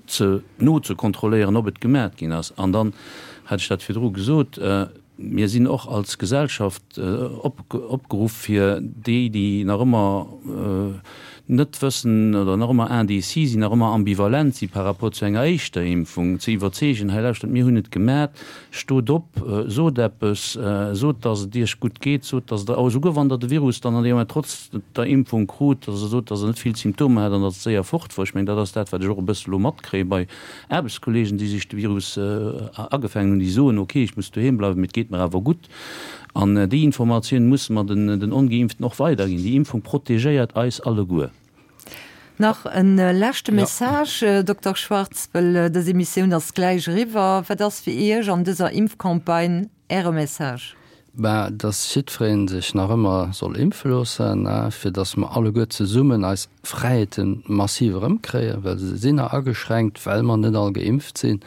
[SPEAKER 4] ze nozekontrolléieren, ob et gemat ginn ass. An dann hat ech dat virdru gesot, Mir sinn och als Gesellschaft opgeruff, fir déi, déi nach ëmmer net wëssen oder nach ëmmer indécis sinn, nach ëmmer ambivalent si par rapport zu enger éischter Impfung, ze iwwerzeegen, Hei lauschtert, mir hunn et gemat, stot op, sot eppes, sot, dass et Iech gutt geet, sot, dass Der, esouguer wann Der de Virus dann an deem Moment trotz der Impfung krut, dass Der sot, dass Der net vill Symptomer hat an dass et séier fort wor. Ech mengen, dat ass dat, wat ech och e bësse elo matkréie bei Aarbechtskolleegen, déi sech de Virus agefaangen hunn, déi soen, ok, ech muss doheem bleiwen, mee et geet mer awer gutt. An déi Informatioun musse mer den Ongeimpften och weiderginn. Déi Impfung protegéiert eis alleguer.
[SPEAKER 3] Nach e leschte Message, Dokter Schwarz, well dës Emissioun ass gläich eriwwer. Wat ass fir Iech an dëser Impfcampagne Äre Message?
[SPEAKER 5] Ben, dass jiddweree sech nach ëmmer soll impfe loossen, fir dass mer alleguer zesummen eis Fräiheete massiv erëmkréien, well se sinn nach ageschränkt, well mer net all geimpft sinn.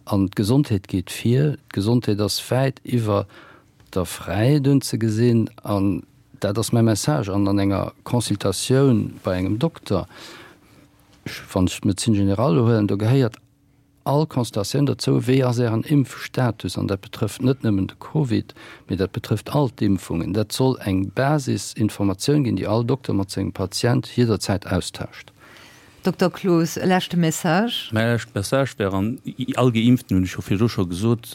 [SPEAKER 5] An d'Gesondheet geet vir. D'Gesondheet ass wäit iwwer. Dokter fräi dunn ze gesinn an dat ass mäi Message an an enger Consultatioun bei engem Dokter, ech, wann ech d'Médecine générale elo huelen, do gehéiert all Consultatioun dozou, wéi ass Ären Impfstatus an dat betrëfft net nëmmen de Covid, mee dat betrëfft all d'Impfungen. Dat soll eng Basisinformatioun ginn, déi all Dokter mat sengem Patient jidderzäit austauscht.
[SPEAKER 3] Dokter Cloos, e leschte Message?
[SPEAKER 4] Mäi leschte Message wär an all Geimpften, hunn ech jo virdru scho gesot,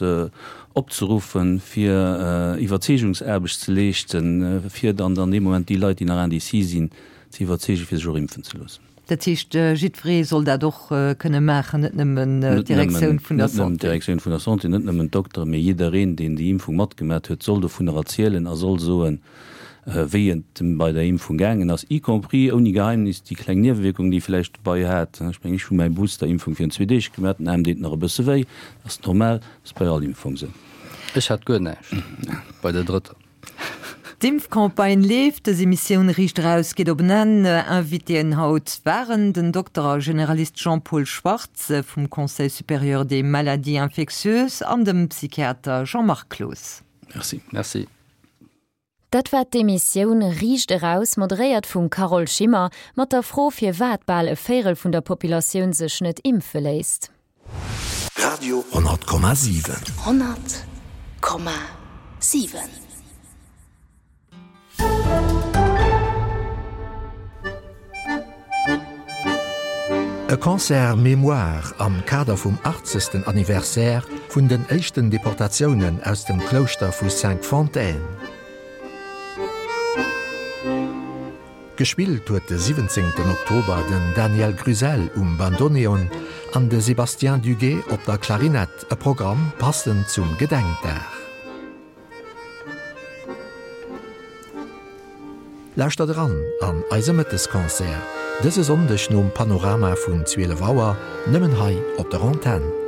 [SPEAKER 4] opzeruffen, fir Iwwerzeegungsaarbecht ze leeschten, fir dann an deem Moment déi Leit, déi nach indécis sinn, ze iwwerzeegen, fir sech och impfen ze loossen.
[SPEAKER 3] Dat heescht, jiddweree soll dat och kënne maachen, net nëmmen d'Direktioun vun der
[SPEAKER 4] Santé? Net nëmmen d'Direktioun vun der Santé, net nëmmen d'Dokteren, mee jiddereen, deen déi Impfung matgemat huet, soll dovunner erzielen a soll soen, wéi et em bei der Impfung gaangen ass, y compris, ouni Geheimnis, déi kleng Niewewierkung, déi e vläicht dobei hat. Ech mengen, ech hu mäi Booster-Impfung virun zwee Deeg gemaach, den Aarm deet nach e bësse wéi, dat ass normal, dat ass bei all Impfung esou.
[SPEAKER 5] Ech hat guer näischt bei der drëtter.
[SPEAKER 3] D'Impfcampagne leeft, dës Emissioun Riicht Eraus geet op en Enn. Invitéen haut waren den Dokter a Generalist Jean-Paul Schwartz vum Conseil supérieur des maladies infectieuses an dem Psychiater Jean-Marc Cloos.
[SPEAKER 4] Merci.
[SPEAKER 5] Merci.
[SPEAKER 1] Dat war d'Emissioun Riicht eraus, moderéiert vum Carole Schimmer, mat der Fro firwat bal e Véirel vun der Populatioun sech net impfe léisst.
[SPEAKER 6] Radio 10,7.
[SPEAKER 2] 100,7.
[SPEAKER 6] E Concert Mémoire am Kader vum 80. Anniversaire vun den éischten Deportatiounen aus dem Klouschter vu Cinqfontaines. Gespillt huet de 17 Oktober den Daniel Gruselle um Bandoneon an de Sébastien Duguet op der Klarinett, e Programm passend zum Gedenkdag. Lauschtert eran an eise Mëttesconcert dëse Sonndeg nom Panorama vun 12 Auer, nëmmen hei op der Antenn.